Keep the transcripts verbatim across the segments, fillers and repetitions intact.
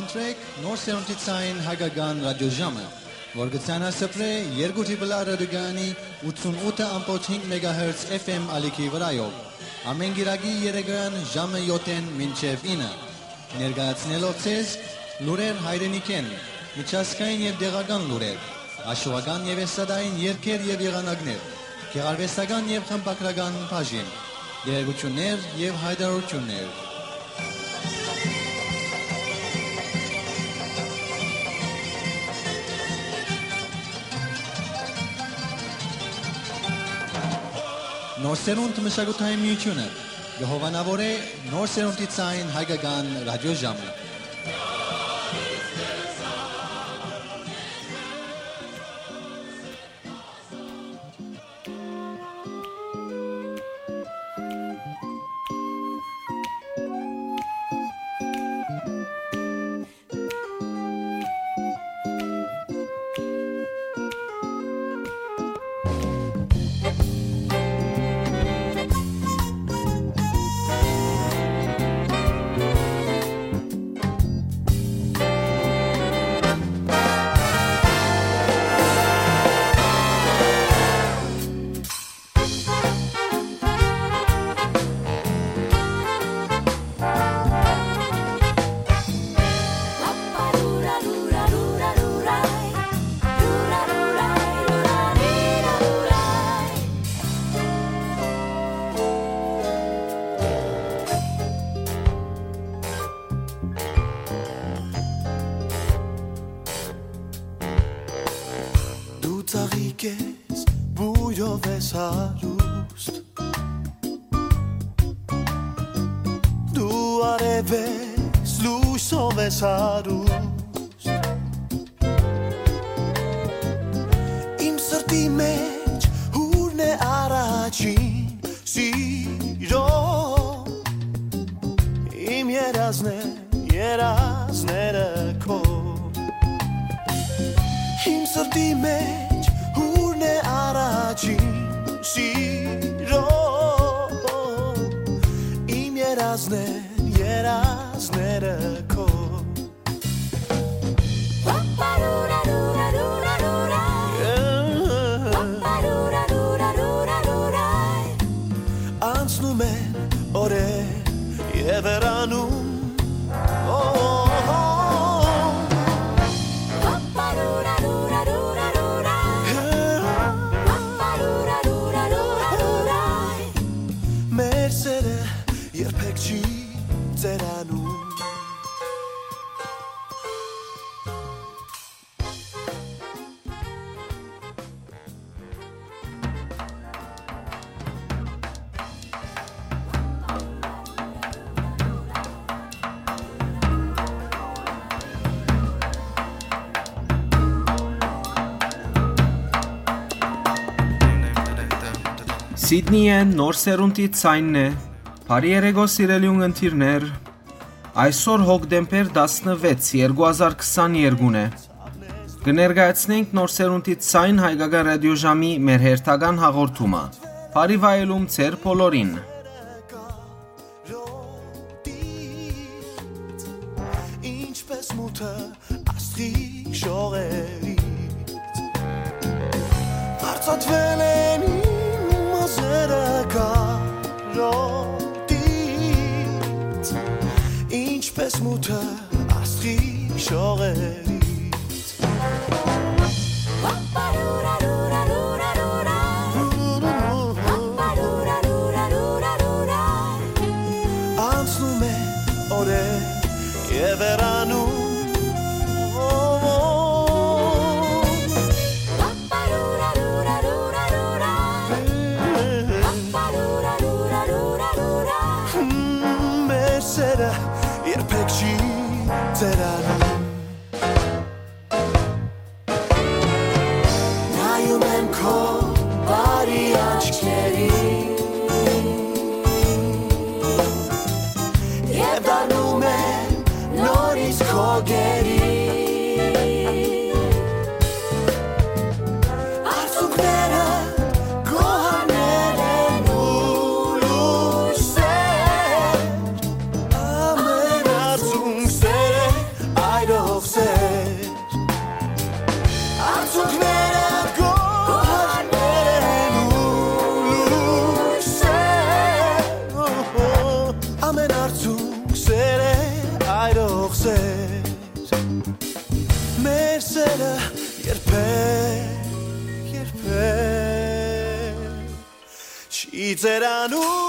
Սրեք Նոր Սերունդի Ցայն Հայկական Ռադիոժամը, որ կը ցանասփռէ երկու Տրիպլ Ա ռադիոկայանի ութսուն ութը ամբողջ հինգ մեգահերց F M ալիքի վրայով, ամէն կիրակի երեկոյան ժամը յոթ մինչեւ ինը, ներկայացնելով ձեզ լուրեր հայրենիքէն, միջազգային եւ տեղական լուրեր, աշուական եւ էստրադային երգեր եւ եղանակներ, գեղարուեստական եւ խմբագրական բաժին, տեղեկութիւններ եւ յայտարարութիւններ։ Նոր Սերունդ մշակութային միութիւնը կը հովանաւորէ Նոր Սերունդի Ցայն Հայկական Ռադիոժամը։ Դու ծաղիկ ես, բոյրով ես հարուստ, դու արեւ ես, լոյսով ես հարուստ։ Իմ սրտի մէջ հուրն է առաջին սիրո, իմ երազն է, երազները քո։ Իմ սրտի մէջ հուրն է առաջին սիրո, իմ երազն է, երազները քո։ Անցնում են օրեր եւ հեռանում, օ, օ, օ, օ։ Մեր սերը երբեք չի ծերանում։ Սիդնիէն Նոր Սերունդի Ցայնն է։ Բարի երեկո, սիրելի ունգընտիրներ։ Այսօր հոկտեմբեր տասնվեց, երկու հազար քսաներկուն է։ Կը ներկայացնենք Նոր Սերունդի Ցայն Հայկական Ռադիոժամի մեր հերթական հաղորդումը։ Բարի վայելում ձեր բոլորին։ Ինչպես մութը աստղի շողերից, վարձատրվել են իմ մազերը կարոտից, ինչպես մութը աստղի շողերից։ Անցնում է օրեր եւ հեռանում, մեր սերը երբեք չի ծերանում։ Նայում եմ քո բարի աչքերին եւ դառնում եմ նորից քո գերին։ Արցունքները գոհարներ են ու լույսեր, ամենարձուն սեր է այդ Երբեք, երբեք չի ծերանում։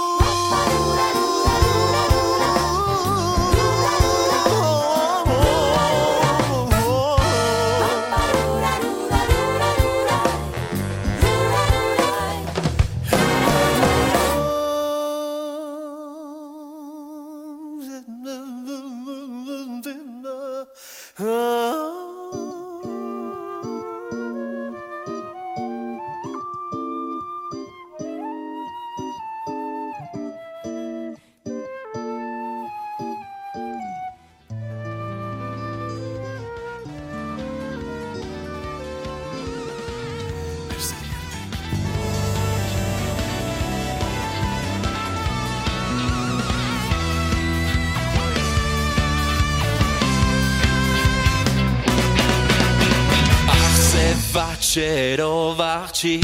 Ախսե վաչերով աղջի,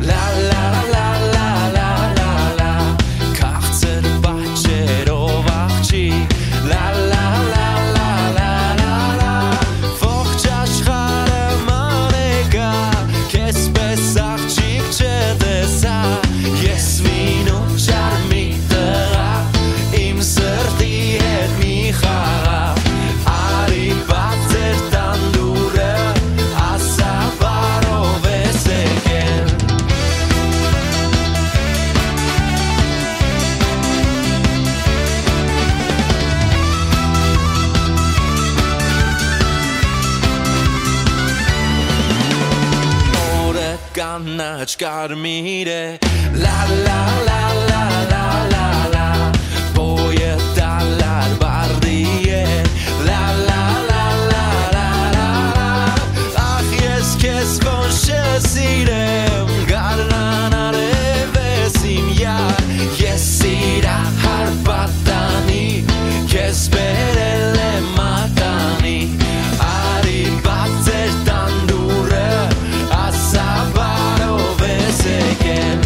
լա, լա, լա, լա, լա, լա, լա, քաղցր պատճերով աղջի, լա, լա, լա, լա, լա, լա, լա, ողջ աշխարհը մանեկա, քեզպէս աղջիկ չտեսայ, ես մինու չար մի տղայ, իմ սրտի հետ մի խաղայ, արի բաց էր տան դուռը, ասա բարով ես եկել։ Նորը կանաչ կարմիր է, լա, լա, լա, լա, լա, լա, լա, բոյը դալար բարդի է, լա, լա, լա, լա, լա, լա, լա, ախ, ես քեզ ոնց չսիրեմ, գարնան արև ես իմ յար, ես սիրահար պատանի, քեզ բերել եմ մատանի, արի բաց էր տան դուռը, ասա բարով ես եկել։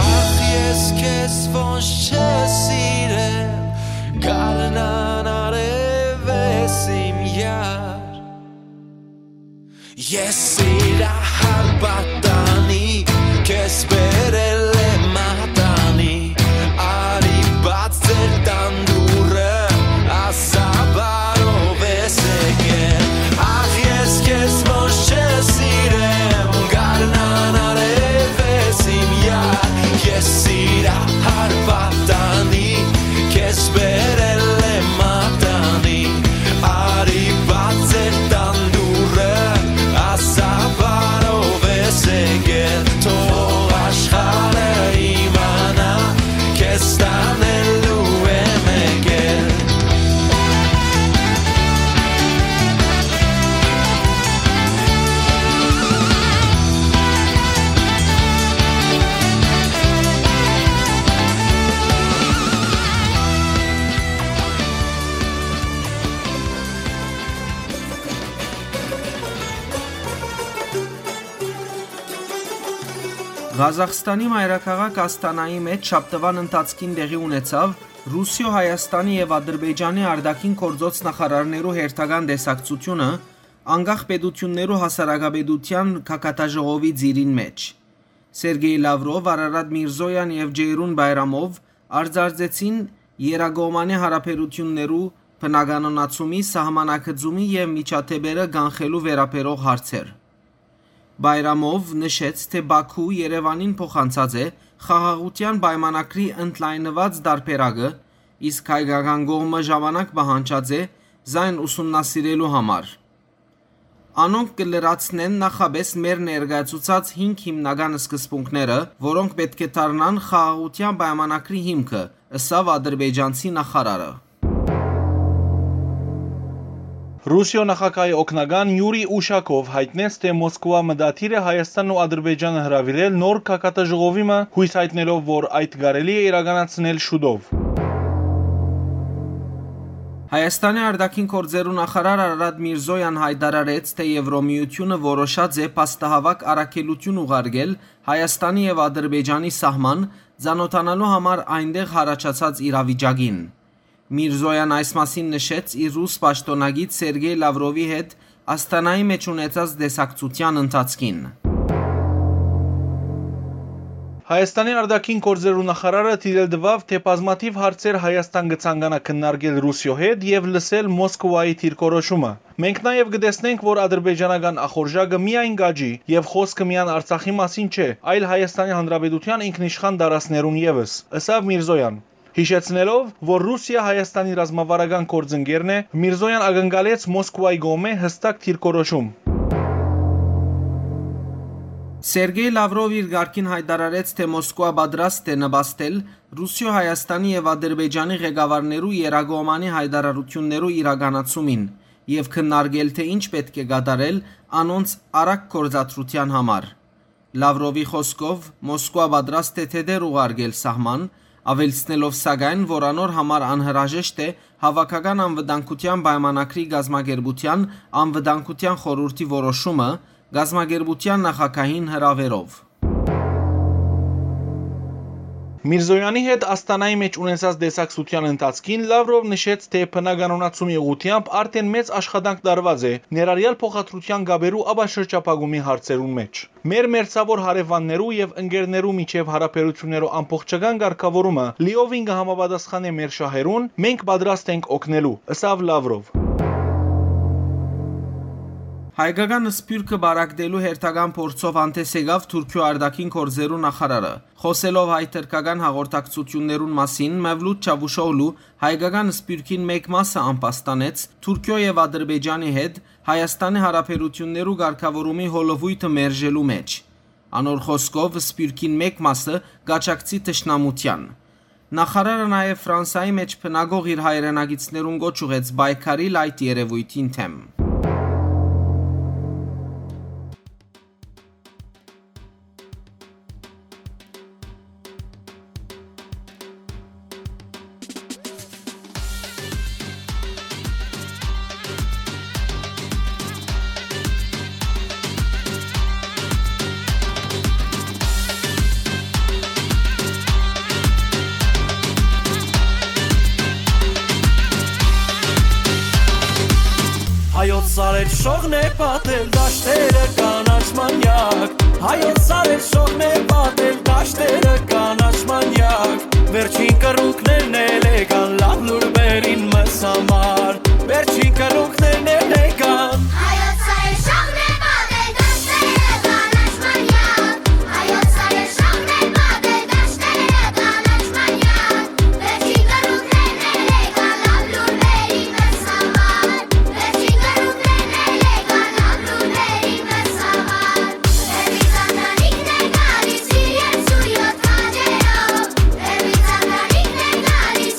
Ախ, ես քեզ ոնց չսիրեմ, գարնան արև ես իմ յար։ Ես սիրահար պատանի, քեզ բերել եմ մատանի, արի բաց էր տան դուռը, ասա բարով ես եկել։ Ախ, ես քեզ ոնց չսիրեմ, գարնան արև ես իմ յար, ես սիրահար պատանի, քեզ բերել եմ մատանի, արի բաց էր տան դուռը, ասա բարով ես եկել, թող աշխարհը իմանայ, քեզ տանելու եմ եկել։ Ղազախստանի մայրաքաղաք Ասթանայի մէջ շաբթուան ընթացքին տեղի ունեցաւ Ռուսիոյ, Հայաստանի եւ Ադրբեջանի արտաքին գործոց նախարարներու հերթական տեսակցութիւնը, անկախ պետութիւններու հասարակապետութեան գագաթաժողովի ծիրին մէջ։ Սերգեյ Լավրով, Արարատ Միրզոյան եւ Ջեյրուն Բայրամով արծարծեցին երկկողմանի հարաբերութիւններու բնականոնացումի, սահմանագծումի եւ միջադէպերը կանխելու վերաբերող հարցեր։ Բայրամով նշեց, թէ Բաքու Երեւանին փոխանցած է խաղաղութեան պայմանագրի ընդլայնուած տարբերակը, իսկ հայկական կողմը ժամանակ պահանջած է զայն ուսումնասիրելու համար։ Անոնք կը լրացնեն նախապէս մեր ներկայացուցած հինգ հիմնական սկզբունքները, որոնք պէտք է դառնան խաղաղութեան պայմանագրի հիմքը, ըսաւ ադրբեջանցի նախարարը։ Ռուսիոյ նախագահի օգնական Յուրի Ուշակով յայտնեց, թէ Մոսկուա մտադիր է Հայաստանն ու Ադրբեջանը հրաւիրել նոր գագաթաժողովի մը, յոյս յայտնելով, որ այդ կարելի է իրականացնել շուտով։ Հայաստանի արտաքին գործերու նախարար Արարատ Միրզոյան յայտարարեց, թէ Եվրոմիությունը որոշած է փաստահաւաք առաքելութիւն ուղարկել Հայաստանի եւ Ադրբեջանի սահման, ծանօթանալու համար այնտեղ յառաջացած իրավիճակին։ Միրզոյան այս մասին նշեց իր ռուս պաշտօնագիծ Սերգեյ Լավրովի հետ Աստանայի մէջ ունեցած տեսակցութեան ընթացքին։ Հայաստանի արտաքին գործերու նախարարը դիտել տուաւ, թէ բազմաթիւ հարցեր Հայաստան կը ցանկանայ քննարկել Ռուսիոյ հետ եւ լսել Մոսկուայի դիրքորոշումը։ Մենք նաեւ կը տեսնենք, որ ադրբեջանական ախորժակը միայն կ'աճի եւ խօսքը միայն Արցախի մասին չէ, այլ Հայաստանի Հանրապետութեան ինքնիշխան տարածքներուն եւս, ըսաւ Միրզոյան, յիշեցնելով, որ Ռուսիա Հայաստանի ռազմավարական գործընկերն է, Միրզոյան ակնկալեց Մոսկուայի կողմէ յստակ դիրքորոշում։ Սերգեյ Լավրով իր կարգին յայտարարեց, թէ Մոսկուա պատրաստ է նպաստել Ռուսիոյ, Հայաստանի եւ Ադրբեջանի ղեկավարներու եռակողմանի յայտարարութիւններու իրականացումին եւ քննարկել, թէ ինչ պէտք է կատարել անոնց արագ գործադրութեան համար։ Լավրովի խօսքով, Մոսկուա պատրաստ է թեթեր ուղարկել սահման, աւելցնելով սակայն, որ անոր համար անհրաժեշտ է Հաւաքական անվտանգութեան պայմանագրի կազմակերպութեան անվտանգութեան խորհուրդի որոշումը կազմակերպութեան նախագահին հրաւերով։ Միրզոյանի հետ Աստանայի մէջ ունեցած տեսակցութեան ընթացքին Լավրով նշեց, թէ բնականոնացումի ուղղութեամբ արդէն մեծ աշխատանք տարուած է, ներառյալ փոխադրութեան կապերու ապաշրջափակումի հարցերուն մէջ։ Մեր մերձաւոր հարեւաններու եւ ընկերներու միջեւ յարաբերութիւններու ամբողջական կարգաւորումը լիովին կը համապատասխանէ մեր շահերուն, մենք պատրաստ ենք օգնելու, ըսաւ Լավրով։ Հայկական սփիւռքը պարագտելու հերթական փորձով հանդէս եկաւ Թուրքիոյ արտաքին գործերու նախարարը։ Խօսելով հայ-թրքական հաղորդակցութիւններուն մասին, Մևլութ Չավուշօղլու հայկական սփիւռքին մէկ մասը ամբաստանեց Թուրքիոյ եւ Ադրբեջանի հետ Հայաստանի յարաբերութիւններու կարգաւորումի հոլովոյթը մերժելու մէջ։ Անոր խօսքով, սփիւռքին մէկ մասը կ'աջակցի թշնամութեան։ Նախարարը նաեւ Ֆրանսայի մէջ բնակող իր հայրենակիցներուն կոչ ուղղեց պայքարիլ այդ երեւոյթին դէմ։ Հայոց սարեր շողն է պատել դաշտերը կանաչ մանյակ։ Հայոց սարեր շողն է պատել դաշտերը կանաչ մանյակ։ Վերջին կռունկներն էլ եկան լաւ լուրբերին մեզ համար։ Վերջին կռունկներն էլ եկան։ Հայոց սարեր շողն է պատել դաշտերը կանաչ մանյակ։ Հայոց սարեր շողն է պատել դաշտերը կանաչ մանյակ։ Վերջին կռունկներն էլ եկան լաւ լուրբերին մեզ համար։ Վերջին կռունկներն էլ եկան լաւ լուրբերին մեզ համար։ Հերմի Սանտանիկն է գալիս իր երկսուն յոթ քաջերով։ Հերմի Սանտանիկն է գալիս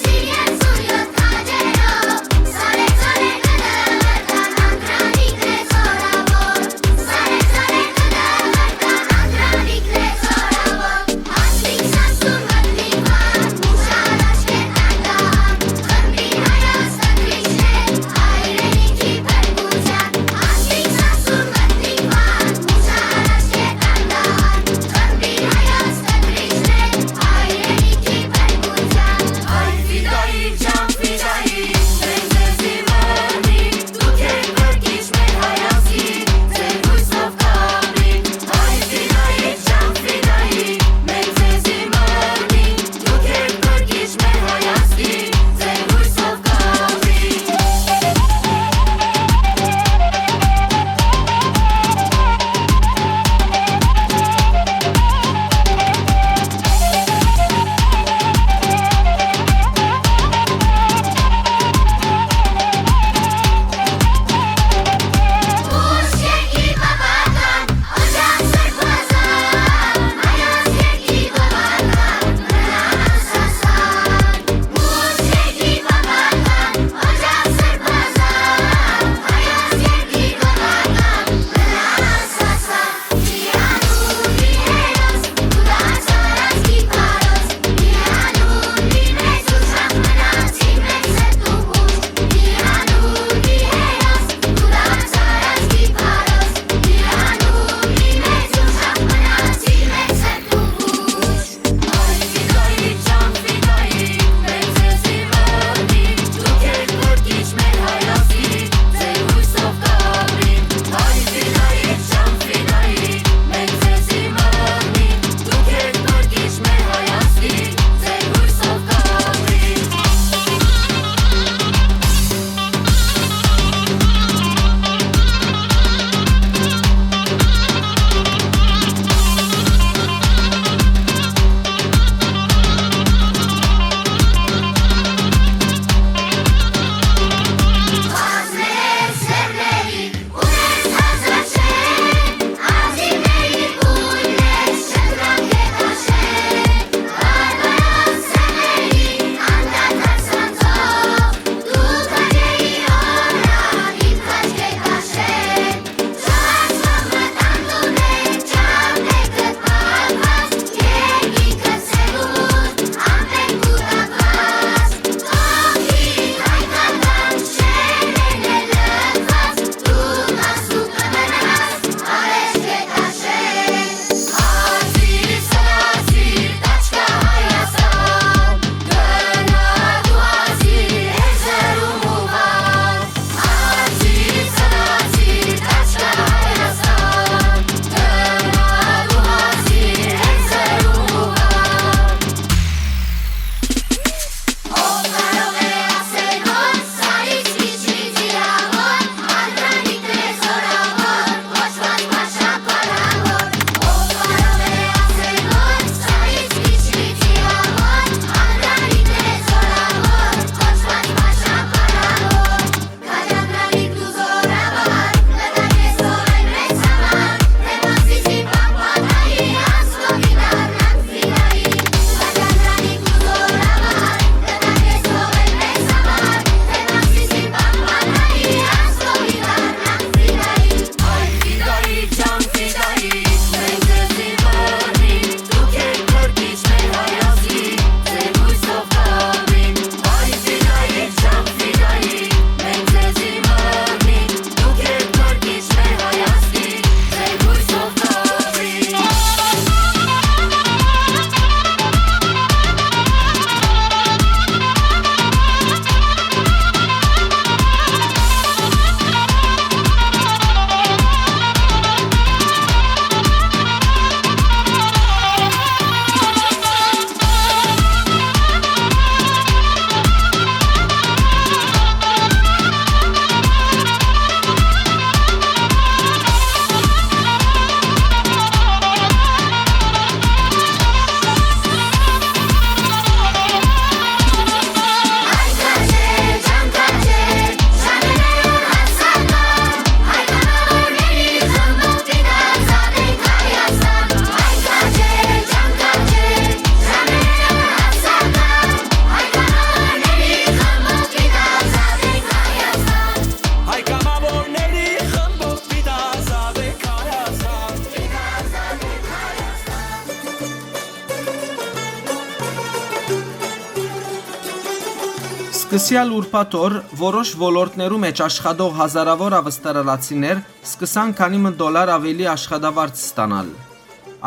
Սկսեալ ուրբաթ օր որոշ ոլորտներու մէջ աշխատող հազարաւոր աւստրալացիներ սկսան քանի մը դոլար աւելի աշխատավարձ ստանալ։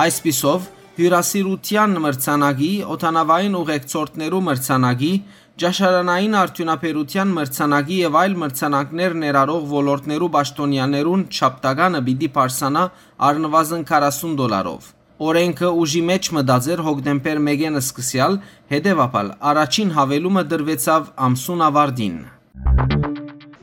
Այսպիսով, հիւրասիրութեան մրցանակի, օդանաւային ուղեկցորդներու մրցանակի, ճաշարանային արդիւնաբերութեան մրցանակի եւ այլ մրցանակներ ներառող ոլորտներու պաշտօնեաներուն չափտականը պիտի բարձրանայ առնուազն քառասուն դոլարով։ Օրէնքը ուժի մէջ մտած էր հոկտեմբեր մէկէն սկսեալ, հետեւաբար առաջին յաւելումը տրուեցաւ ամսուն աւարտին։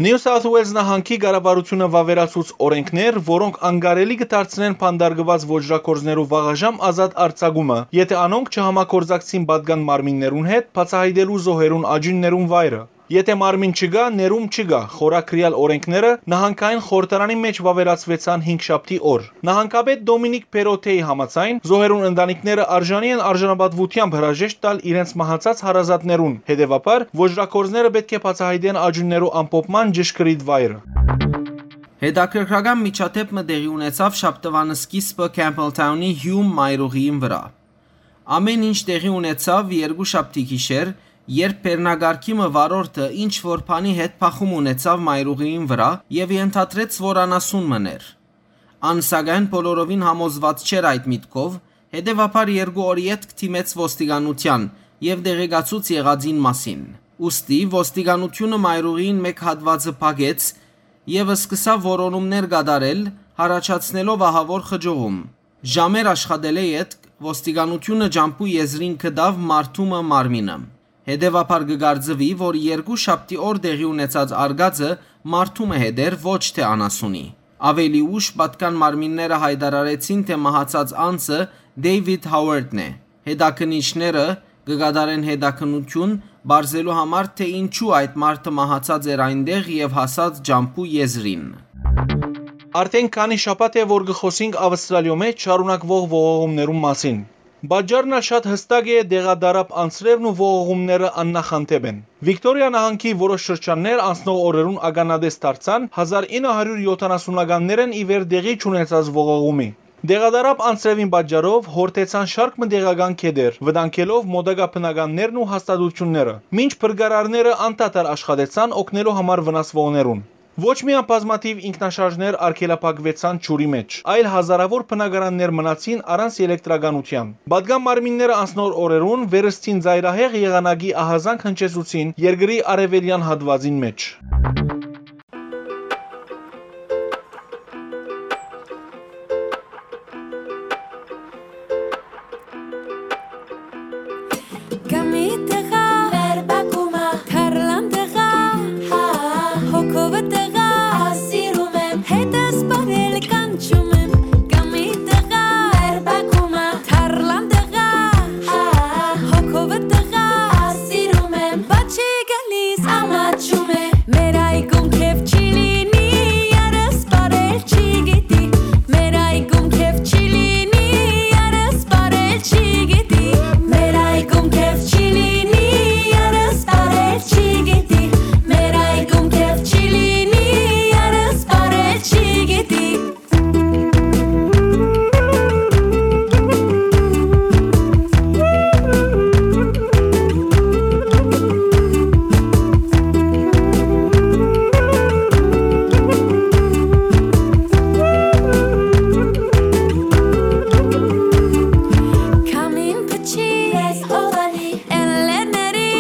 Նիու Սաութ Ուելզ նահանգի կառավարութիւնը վաւերացուց օրէնքներ, որոնք անկարելի կը դարձնեն բանտարկուած ոճրագործներու վաղաժամ ազատ արձակումը, եթէ անոնք չհամագործակցին պատկան մարմիններուն հետ՝ բացայայտելու զոհերուն աճիւններուն վայրը։ Եթէ մարմին չկայ, ներում չկայ խորագրեալ օրէնքները նահանգային խորհրդարանի մէջ վաւերացուեցան հինգշաբթի օր։ Նահանգապետ Դոմինիկ Պերոթեի համաձայն՝ զոհերուն ընտանիքները արժանի են արժանապատուութեամբ հրաժեշտ տալ իրենց մահացած հարազատներուն, հետեւաբար՝ ոճրագործները պէտք է բացայայտեն աճիւններու ամփոփման ճշգրիտ վայրը։ Հետաքրքրական միջադէպ մը տեղի ունեցաւ շաբթուան սկիզբը Քեմփլթաունի Հիում մայրուղիին վրայ։ Ամէն ինչ տեղի ունեցաւ երկուշաբթի գիշեր, երբ բեռնակարգի մը վարորդը ինչ որ բանի հետ բախում ունեցաւ մայրուղիին վրայ եւ ենթադրեց, որ անասուն մըն էր։ Ան, սակայն, բոլորովին համոզուած չէր այդ միտքով, հետեւաբար երկու օր ետք դիմեց ոստիկանութեան եւ տեղեկացուց եղածին մասին։ Ուստի ոստիկանութիւնը մայրուղիին մէկ հատուածը փակեց եւ սկսաւ որոնումներ կատարել, յառաջացնելով ահաւոր խճողում։ Ժամեր աշխատելէ ետք ոստիկանութիւնը ճամբու եզրին գտաւ մարդու մը մարմինը։ Հետեւաբար կը կարծուի, որ երկուշաբթի օր տեղի ունեցած արկածը մարդու մը հետ էր, ոչ թէ անասունի։ Աւելի ուշ պատկան մարմինները յայտարարեցին, թէ մահացած անձը Դեյվիդ Հաուարդն է։ Հետաքննիչները կը կատարեն հետաքննութիւն, պարզելու համար, թէ ինչու այդ մարդը մահացած էր այնտեղ եւ հասած ճամբու եզրին։ Արդէն քանի շաբաթ է, որ կը խօսինք Աւստրալիոյ մէջ շարունակուող ողողումներուն մասին։ Պատճառն ալ շատ յստակ է, տեղատարափ անձրեւն ու ողողումները աննախանտէպ են։ Վիկտորիա նահանգի որոշ շրջաններ անցնող օրերուն ականատես դարձան հազար ինը հարիւր յոթանասունականներէն ի վեր տեղի չունեցած ողողումի։ Տեղատարափ անձրեւին պատճառով յորդեցան շարք մը տեղական գետեր, վտանգելով մօտակայ բնականներն ու հաստատութիւնները, մինչ փրկարարները անդադար աշխատեցան օգնելու համար վնասուողներուն։ Ոչ միայն բազմաթիւ ինքնաշարժներ արգելափակուեցան ջուրի մէջ, այլ հազարաւոր բնակարաններ մնացին առանց ելեկտրականութեան։ Պատկան մարմինները անցնող օրերուն վերստին ծայրահեղ եղանակի ահազանգ հնչեցուցին երկրի արեւելեան հատուածին մէջ։ Կամի տղա, մեր բակումը, թարլան տղա, հա, հոգովը տղա, սիրում եմ, հետս պարել կանչում եմ, կամի տղա, մեր բակումը, թարլան տղա, հա, հոգովը տղա, սիրում եմ, բաչի գալիս, ամաչում է, մեր այգում քեֆ չի լինի, երս պարել չի գիտի, մեր այգում քեֆ չի լինի, երս պարել չի գիտի, մեր այգում քեֆ չի լինի, երս պարել չի գիտի, մեր այգում քեֆ չի լինի, երս պարել չի գիտի։ Քամին փչի, ես հովանի, էլլերների,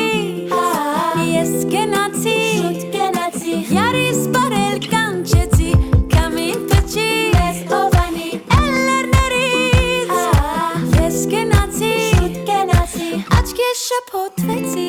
ես գնացի, շուտ գնացի, յարիս պարել կանչեցի, քամին փչի, ես հովանի, էլլերներից, ես գնացի, շուտ գնացի, աչքերս շփոթվեցի,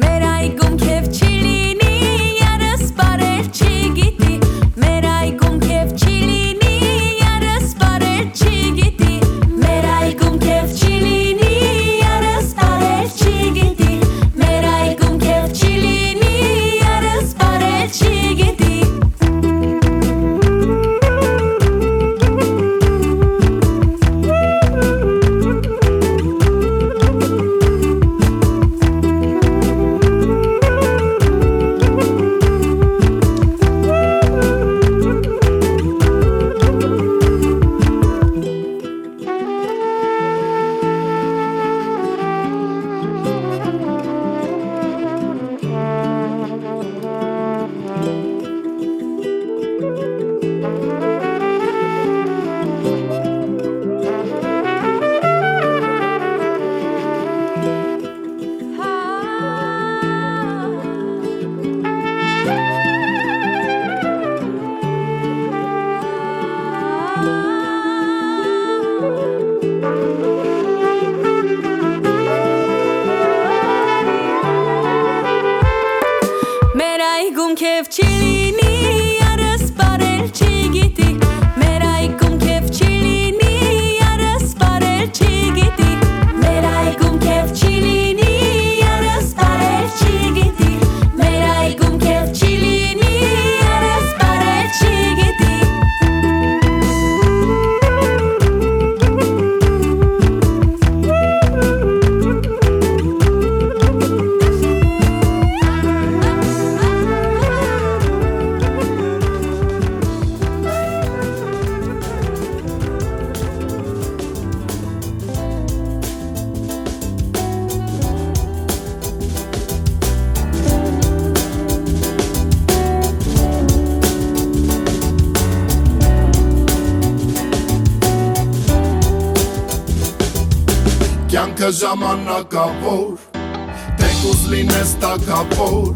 մեր այգում քեֆ չի լինի, երս պարել չի գիտի, մեր այգում քեֆ չի լինի, երս պարել չի գիտի, մեր այգում քեֆ չի լինի, երս պարել չի գիտի, մեր այգում քեֆ չի լինի, երս պարել չի գիտի։ Չի լինի, երս պարել չի գիտի, մեր այգում քեֆ չի լինի, երս պարել չի գիտի, մեր այգում քեֆ չի լինի, երս պարել չի գիտի, մեր այգում քեֆ չի լինի, երս պարել չի գիտի։ Կյանքը ժամանակաւոր, թեկուզ լինես թագաւոր,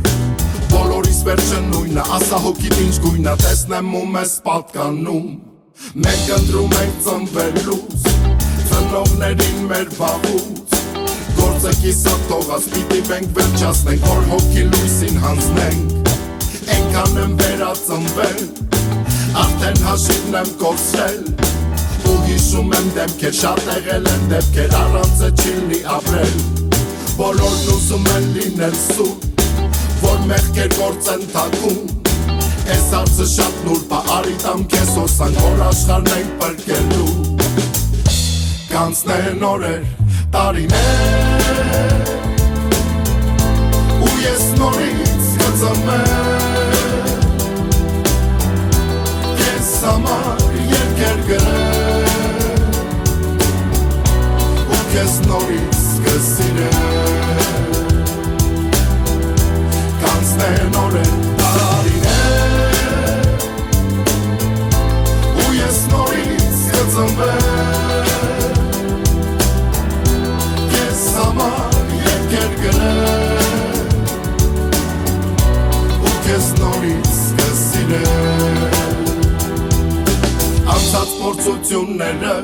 բոլորիս վերջը նոյնը, ասա հոգիդ ինչ գոյնը, տեսնեմ ու մեզ պատկանում։ Մենք ընտրում ենք ծնվելուց, ծնողներին մեր վաղուց, գործը կիսատ թողած, պիտի մենք վերջացնենք, որ հոգի լոյսին յանձնենք։ Այնքան եմ վերածնվել, արդեն հաշիվն եմ կորցրել, ու յիշում եմ դեմքեր, շատ եղել են դեպքեր, առանց է չի լի ապրել, բոլորն ուզում են լինել սուր, որ մեղքեր գործեն թակում։ Այս հարցը շատ նուրբ ա, արի տամ քեզ հոսանք, որ աշխարհն ենք փրկելու։ Կանցնեն օրեր, տարիներ, ու ես նորից կծնվեմ, քեզ համար երկեր գրեմ, ու քեզ նորից կսիրեմ։ Կանցնեն օրեր, տարիներ, ու ես նորից կծնվեմ, քեզ համար երկեր գրեմ, ու քեզ նորից կսիրեմ։ Անցած փորձությունները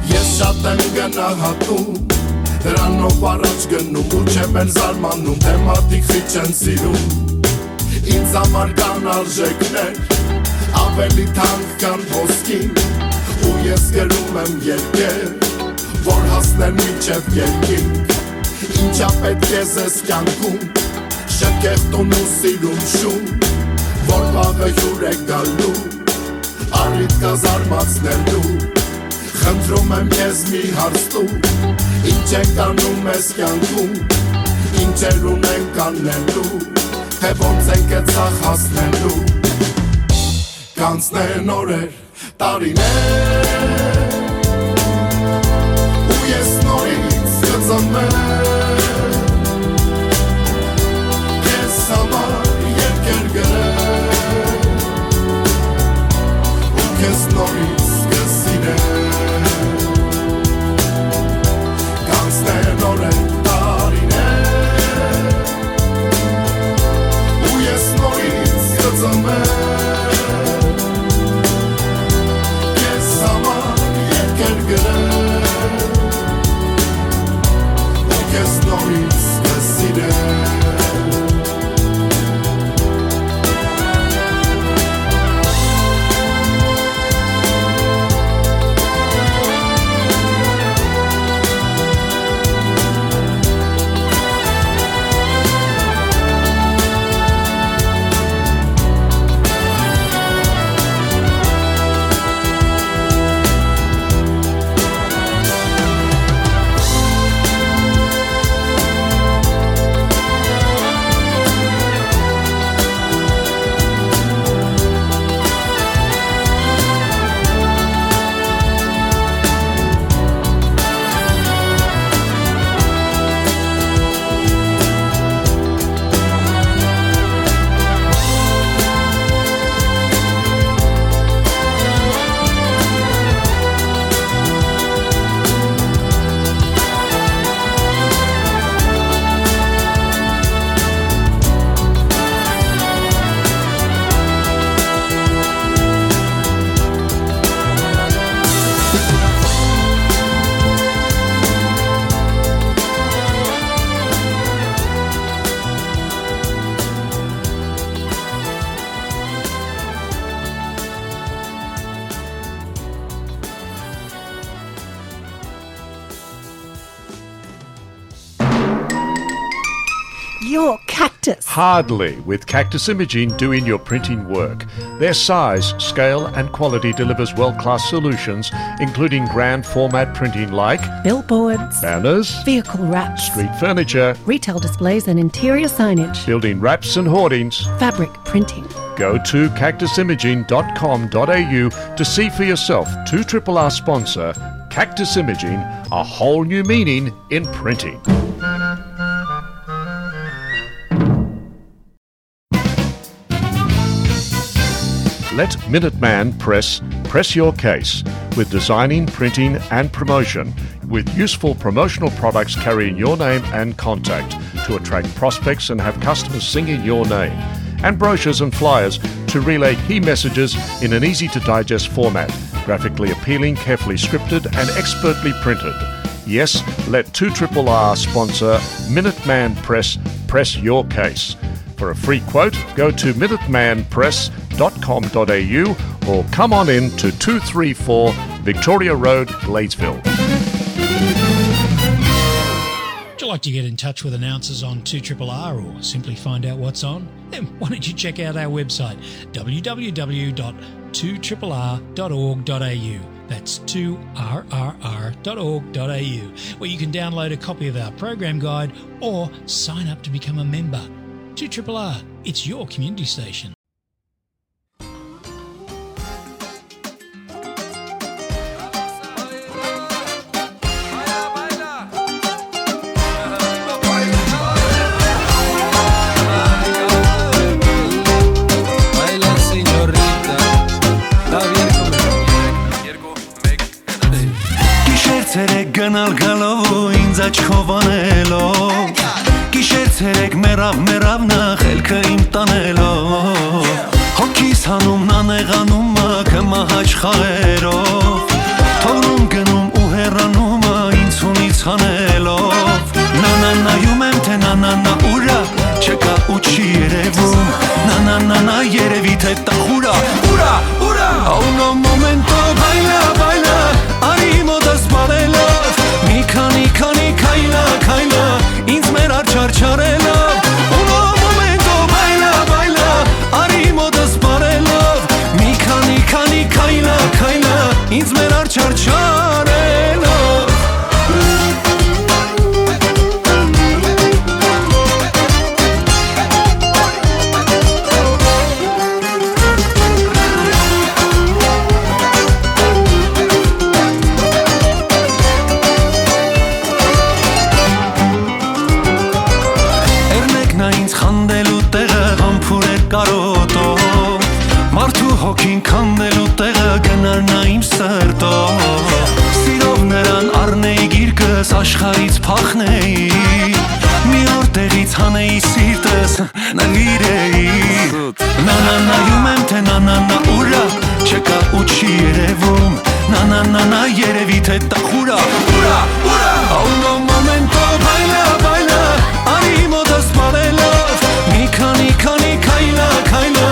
ես շատ եմ գնահատում, դրանով առաջ գնում ու չեմ էլ զարմանում, թե մարդիկ խիչ են սիրում։ Ինձ համար կան արժեքներ, ավելի թանկ քան ոսկին, ու ես գրում եմ երկեր, որ հասնեն մինչև երկին։ Ինչա պետք է զես կյանքում, շքեղ տուն ու սիրուն շուն, որ վաղը հյուր է գալու, առիթ կա զարմացնելու։ Խնդրում եմ քեզ մի հարց տու, ինչ ենք անում այս կյանքում, ինչեր ունենք անելու, թե ոնց ենք այդ սաղ հասնելու։ Կանցնեն օրեր, տարիներ, ու ես նորից կծնվեմ, քեզ համար երկեր գրեմ, ու քեզ նորից կսիրեմ։ Կանցնեն օրեր, տարիներ, ու ես նորից կծնվեմ, քեզ համար երկեր գրեմ, ու քեզ Or Cactus? Hardly, with Cactus Imaging doing your printing work. Their size, scale, and quality delivers world-class solutions, including grand format printing like billboards, banners, vehicle wraps, street furniture, retail displays and interior signage, building wraps and hoardings, fabric printing. Go to cactus imaging dot com dot a u to see for yourself two triple R sponsor Cactus Imaging, a whole new meaning in printing. Let Minuteman Press press your case with designing, printing, and promotion, with useful promotional products carrying your name and contact to attract prospects and have customers singing your name, and brochures and flyers to relay key messages in an easy to digest format, graphically appealing, carefully scripted, and expertly printed. Yes, let two triple R sponsor Minuteman Press press your case. For a free quote, go to minuteman press dot com dot a u or come on in to two three four Victoria Road, Gladesville. Would you like to get in touch with announcers on two triple R or simply find out what's on? Then why don't you check out our website, w w w dot two triple r dot org dot a u. That's two r r r dot org dot a u, where you can download a copy of our program guide or sign up to become a member. two triple R, it's your community station. Գիշեր ցերեկ գնալ գալով ու ինձ աչքով անելով, գիշեր ցերեկ մեռավ, մեռավ նախ ելքը իմ տանելով, հոգիս հանում նանեղանում մը քմահաճ խաղերով, թողնում գնում ու հեռանում մը ինձ ունից հանելով, նանանայում եմ, թե նանանա ուրա, չկա ու չի երևում, նանանանա երևի, թե տախուրա, ուրա, ուրա, a uno momento baila, baila, արի մոտս բարելով, մի քանի, քանի քայլա, քայլա, ինձ մեր աչարչարելով, uno momento baila, baila, արի մոտս բարելով, մի քանի, քանի քայլա, քայլա, ինձ մեր աչարչարելով։ Էրնեքնա ինձ խանդելու տեղը, համբուրեր կարոտով, մարդու հոգին քանդելու տեղը, գնար նա իմ սրտով, սիրով նրան առնեի գիրկս, աշխարհից փախնեի, մի օր տեղից հանեի սիրտս, նվիրեի։ Սուտ։ Նանանայում եմ, թե նանանա ուրա, չկա ու չի երևում, նանանանա երևի, թե տախուրա, ուրա, ուրա, a uno momento baila, baila, արի մոտս բարելով, մի քանի, քանի քայլա, քայլա,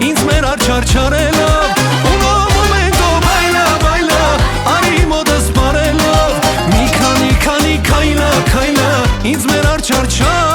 ինձ մեր աչարչարելով, uno momento baila, baila, արի մոտս բարելով, մի քանի, քանի քայլա, քայլա, ինձ մեր աչարչարելով։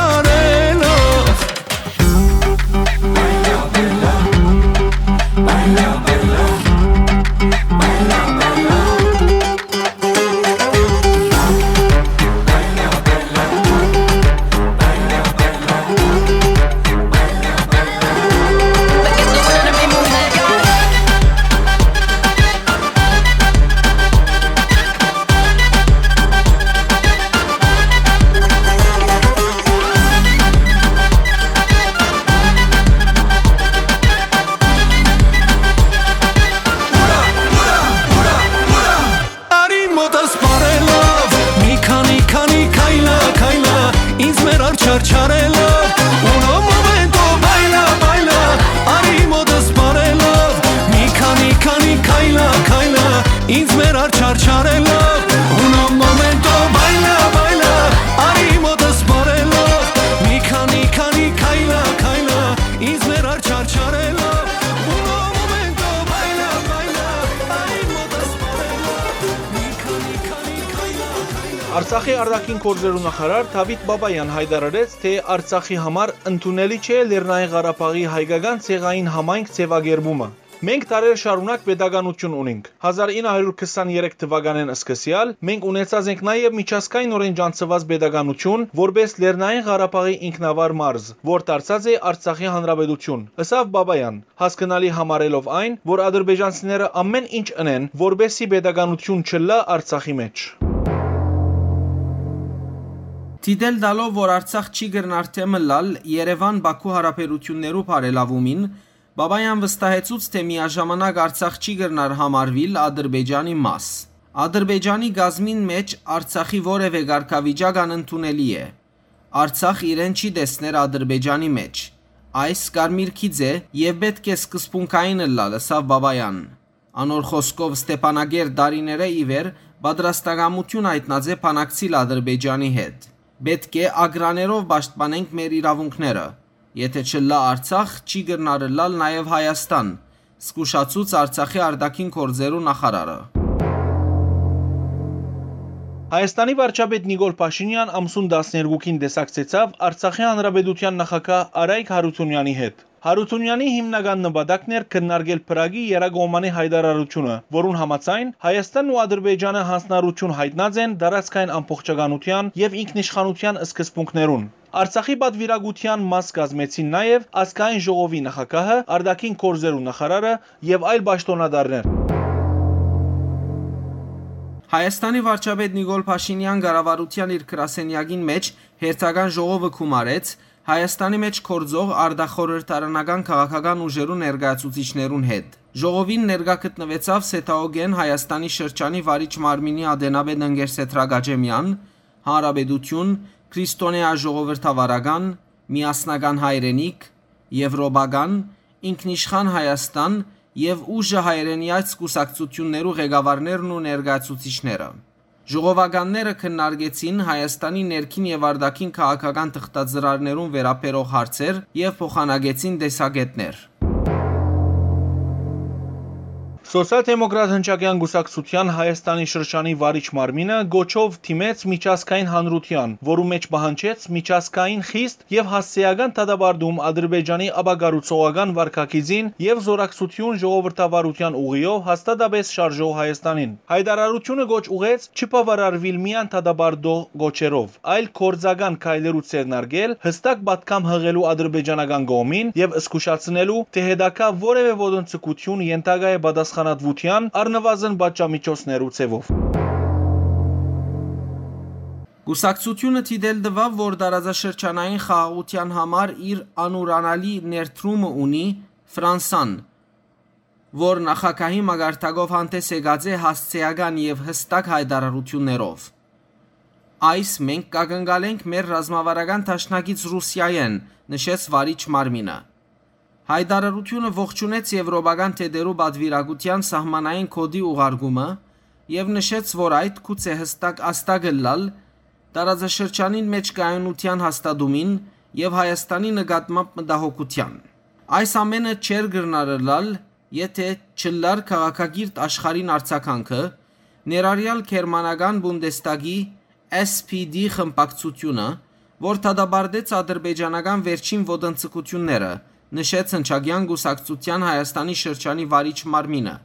Արցախի արտաքին գործերու նախարար Դաւիթ Բաբաեան յայտարարեց, թէ Արցախի համար ընդունելի չէ Լեռնային Ղարաբաղի հայկական ցեղային համայնք ձեւակերպումը։ «Մենք դարեր շարունակ պետականութիւն ունինք։ Հազար ինը հարիւր քսաներեք թուականէն սկսեալ մենք ունեցած ենք նաեւ միջազգայինօրէն ճանչցուած պետականութիւն՝ որպէս Լեռնային Ղարաբաղի ինքնավար մարզ, որ դարձած է Արցախի հանրապետութիւն», ըսաւ Բաբաեան, հասկնալի համարելով այն, որ ադրբեջանցիները ամէն ինչ ընեն, որպէսզի պետականութիւն չըլլայ Արցախի մէջ։ Դիտել տալով, որ Արցախ չի կրնար դէմ ըլլալ Երեւան-Բաքու յարաբերութիւններու բարելաւումին, Բաբաեան վստահեցուց, թէ միաժամանակ Արցախ չի կրնար համարուիլ Ադրբեջանի մաս։ Ադրբեջանի կազմին մէջ Արցախի որեւէ կարգավիճակ անընդունելի է։ Արցախ իրեն չի տեսներ Ադրբեջանի մէջ։ Այս կարմիր գիծ է եւ պէտք է սկզբունքային ըլլալ, ըսաւ Բաբաեան։ Անոր խօսքով, Ստեփանակերտ տարիներէ ի վեր պատրաստակամութիւն յայտնած է բանակցիլ Ադրբեջանի հետ։ «Պէտք է ակրաներով պաշտպանենք մեր իրաւունքները։ Եթէ չըլլայ Արցախ, չի կրնար ըլլալ նաեւ Հայաստան», զգուշացուց Արցախի արտաքին գործերու նախարարը։ Հայաստանի վարչապետ Նիկոլ Փաշինեան ամսուն տասներկուքին տեսակցեցաւ Արցախի Հանրապետութեան նախագահ Արայք Հարութունեանի հետ։ Հարութունեանի հիմնական նպատակն էր քննարկել Փրագի եռակողմանի յայտարարութիւնը, որուն համաձայն Հայաստանն ու Ադրբեջանը յանձնառութիւն յայտնած են տարածքային ամբողջականութեան եւ ինքնիշխանութեան սկզբունքներուն։ Արցախի պատուիրակութեան մաս կազմեցին նաեւ Ազգային ժողովի նախագահը, արտաքին գործերու նախարարը եւ այլ պաշտօնատարներ։ Հայաստանի վարչապետ Նիկոլ Փաշինեան կառավարութեան իր գրասենեակին մէջ հերթական ժողովը գումարեց Հայաստանի մէջ գործող արտախորհրդարանական քաղաքական ուժերու ներկայացուցիչներուն հետ։ Ժողովին ներկայ գտնուեցաւ Սեդաօգէն Հայաստանի շրջանի վարիչ մարմինի ատենապետ Ընկեր Սեդրակ Աճեմեան, Հանրապետություն, Քրիստոնեայ ժողովրդավարական, Միասնական հայրենիք, Եվրոպական, Ինքնիշխան Հայաստան եւ ուժը հայրենիաց կուսակցութիւններու ղեկավարներն ու ներկայացուցիչները։ Ժողովականները քննարկեցին Հայաստանի ներքին եւ արտաքին քաղաքական թղթածրարներուն վերաբերող հարցեր եւ փոխանակեցին տեսակէտներ։ Սոցիալ-դեմոկրատ հնչակեան կուսակցութեան Հայաստանի շրջանի վարիչ մարմինը կոչով դիմեց միջազգային հանրութեան, որու մէջ պահանջեց միջազգային խիստ եւ հասցեական դատապարտում Ադրբեջանի ապակառուցողական վարքագիծին եւ զօրակցութիւն ժողովրդավարութեան ուղիով հաստատապէս շարժող Հայաստանին։ Յայտարարութիւնը կոչ ուղղեց չբաւարարուիլ միայն դատապարտող կոչերով, այլ գործական քայլերու ձեռնարկել, յստակ պատգամ յղելու ադրբեջանական կողմին եւ զգուշացնելու, թէ հետագայ որեւէ ոտնձգութիւն ենթակայ է պատասխանատուութեան, առնուազն պատժամիջոցներու ձեւով։ Կուսակցութիւնը դիտել տուաւ, որ տարածաշրջանային խաղաղութեան համար իր անուրանալի ներդրումը ունի Ֆրանսան, որ նախագահի մակարդակով հանդես եկած է հասցեական եւ յստակ յայտարարութիւններով։ «Այս մենք կակնկալենք մեր ռազմավարական դաշնակից Ռուսիայէն», նշեց վարիչ մարմինը։ Յայտարարութիւնը ողջունեց եվրոպական թեթերու պատուիրակութեան սահմանային կոդի ուղարկումը եւ նշեց, որ այդ գուցե հստակ ազդակ ըլլալ տարածաշրջանին մէջ կայունութեան հաստատումին եւ Հայաստանի նկատմամբ մտահոգութեան։ Այս ամէնը չէր կրնար ըլլալ, եթէ չըլլար քաղաքակիրթ աշխարհին արձագանքը, ներառյալ գերմանական Բունդեստագի S P D խմբակցութիւնը, որ դատապարտեց ադրբեջանական վերջին ոտնձգութիւնները, նշեց Հնչակեան կուսակցութեան Հայաստանի շրջանի վարիչ մարմինը,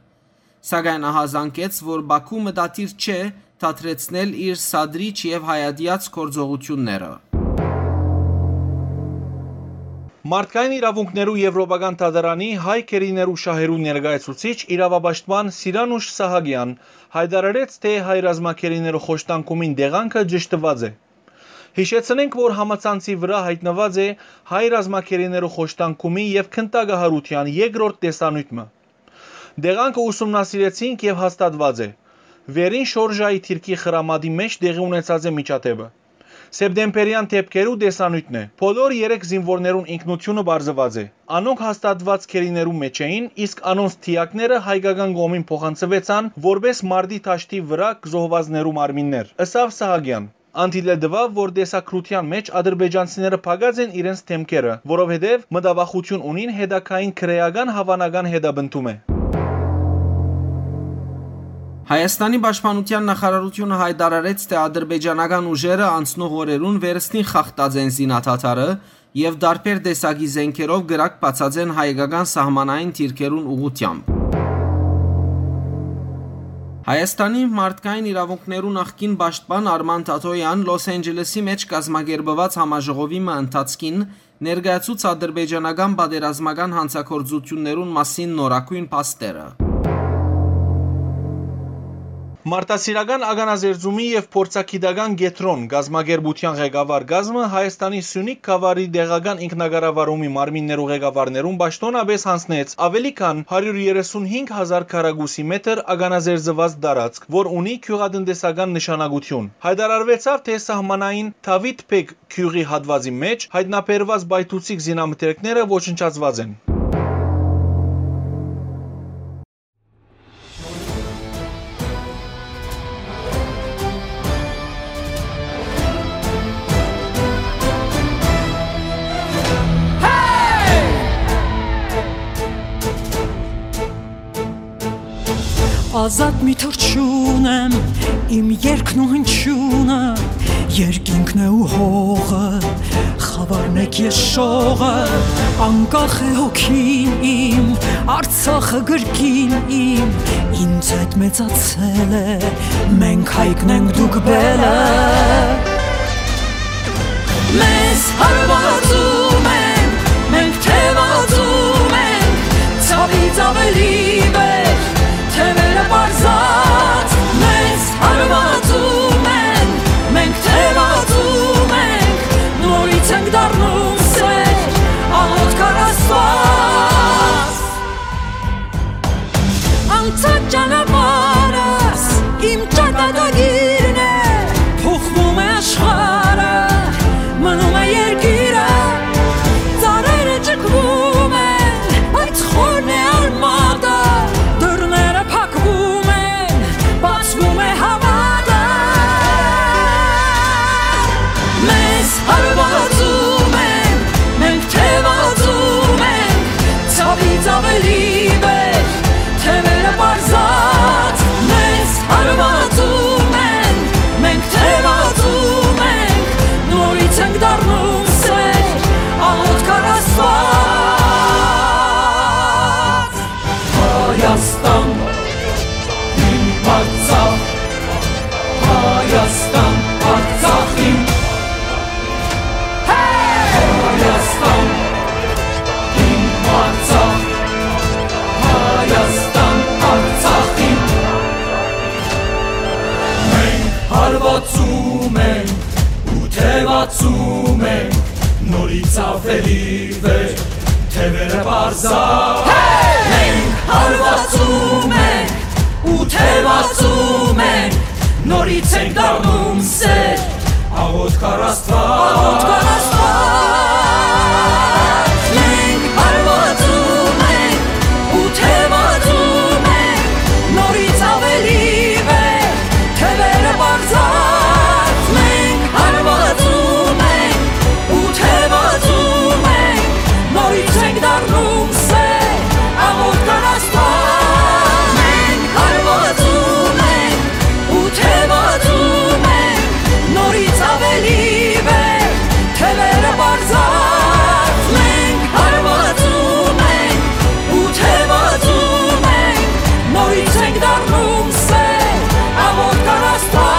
սակայն ահազանգեց, որ Բաքու մտադիր չէ դադրեցնել իր սադրիչ եւ հայատյաց գործողութիւնները։ Մարդկային իրաւունքներու Եվրոպական դատարանի հայ գերիներու շահերու ներկայացուցիչ իրաւապաշտպան Սիրանուշ Սահակեան յայտարարեց, թէ հայ ռազմագերիներու խոշտանգումին տեղանքը ճշդուած է։ Յիշեցնենք, որ համացանցի վրայ յայտնուած է հայ ռազմագերիներու խոշտանգումի եւ գնդակահարութեան երկրորդ տեսանիւթ մը։ Տեղանքը ուսումնասիրեցինք եւ հաստատուած է։ Վերին շորժայի դիրքի խրամատի մէջ տեղի ունեցած է միջադէպը։ Սեպտեմբերեան դէպքերու տեսանիւթն է։ Բոլոր երեք զինուորներուն ինքնութիւնը պարզուած է։ Անոնք հաստատուած գերիներու մէջ էին, իսկ անոնց դիակները հայկական կողմին փոխանցուեցան որպէս մարտի դաշտի վրայ զոհուածներու մարմիններ, ըսաւ Սահակեան։ Ան դիտել տուաւ, որ տեսագրութեան մէջ ադրբեջանցիները փակած են իրենց դէմքերը, որովհետեւ մտավախութիւն ունին հետագային քրէական հաւանական հետապնդում է։ Հայաստանի պաշտպանութեան նախարարութիւնը յայտարարեց, թէ ադրբեջանական ուժերը անցնող օրերուն վերստին խախտած են զինադադարը եւ տարբեր տեսակի զէնքերով կրակ բացած են հայկական սահմանային դիրքերուն ուղղութեամբ։ Հայաստանի մարդկային իրաւունքներու նախկին պաշտպան Արման Թաթոյեան Լոս Անջելեսի մէջ կազմակերպուած համաժողովի մը ընթացքին ներկայացուց ադրբեջանական պատերազմական հանցագործութիւններուն մասին նորագոյն փաստերը։ Մարդասիրական ականազերծումի եւ փորձագիտական կեդրոն կազմակերպութեան ղեկավար կազմը Հայաստանի Սիւնիք գաւառի տեղական ինքնակառավարումի մարմիններու ղեկավարներուն պաշտօնապէս յանձնեց աւելի քան հարիւր երեսունհինգ հազար քառակուսի մետր ականազերծուած տարածք, որ ունի գիւղատնտեսական նշանակութիւն։ Յայտարարուեցաւ, թէ սահմանային Դաւիթ Բեկ գիւղի հատուածի մէջ յայտնաբերուած պայթուցիկ զինամթերքները ոչնչացուած են։ Ազատ մի թռչուն եմ, իմ երգն ու հնչիւնը, երկինքն է ու հողը, խաւարն եք ես շողը, անկախ է հոգին իմ, Արցախը գրկին իմ, ինձ հետ մեծացել է, մենք հայկն ենք, դուք բելը։ Մեզ հարվածում են, մենք թևածում ենք, ցավից ավելի վեր, թևերը պարզած, մեզ հարվածում են, մենք թևածում ենք, նորից ենք դառնում սեր, աղոթք առ Աստված։ Անցած ճանապարհս իմ ճակատագիրն է, փոխվում է աշխարհը, մնում է երկիրը, ծառերը ճկվում են, բայց խորն է արմատը, դռները փակվում են, բացվում է հավատը։ Մեզ հարվածում են, մենք թևածում ենք, ցավից ավելի վեր, թևերը պարզած, մեզ հարվածում են, մենք թևածում ենք, նորից ենք դառնում սեր, աղոթք առ Աստված։ Հայաստան, իմ Արցախ, Հայաստան, Արցախ իմ։ Հայաստան, իմ Արցախ, Հայաստան, Արցախ իմ։ Մենք հարվածում ենք ու թևածում ենք, նորից աւելի վեր, թևերը պարզա։ Մենք հարվածում ենք ու թևածում ենք, նորից ենք դառնում սեր, աղոթք առ Աստված։ Աղոթք առ Աստված։ Մենք հարվածում ենք ու թևածում ենք, նորից աւելի վեր, թևերը պարզած, մենք հարվածում ենք ու թևածում ենք, նորից ենք դառնում սեր, աղոթք առ Աստված։ Մենք հարվածում ենք ու թևածում ենք, նորից աւելի վեր, թևերը պարզած, մենք հարվածում ենք ու թևածում ենք, նորից ենք դառնում սեր, աղոթք առ Աստված։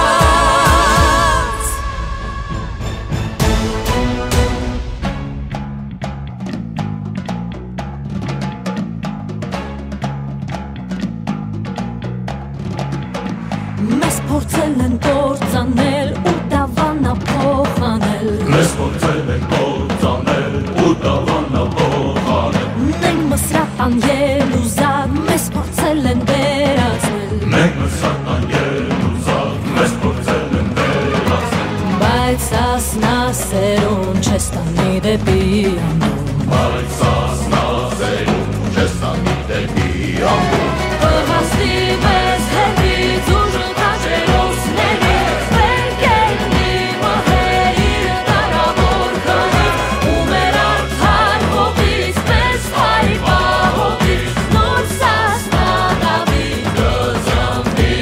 Մեզ փորձել են կործանել ու դավանա փոխանել։ Մեզ փորձել են կործանել ու դավանա փոխանել։ Մենք Մսրատան ելուզակ, մեզ փորձել են վերածել։ Մենք Մսրատան ելուզակ, մեզ փորձել են վերածել։ Բայց սասնա սերուն չես տանի դեպի անդուն։ Բայց սասնա սերուն չես տանի դեպի անդուն։ Կհասնի մեզ հետից ուժը քաջերոսների, մեր կենդի մահերի կարաւոր քարից, ու մեր արդար հողից, մեզ հայ պահողից, նոր Սասնա Դավիթ կծնվի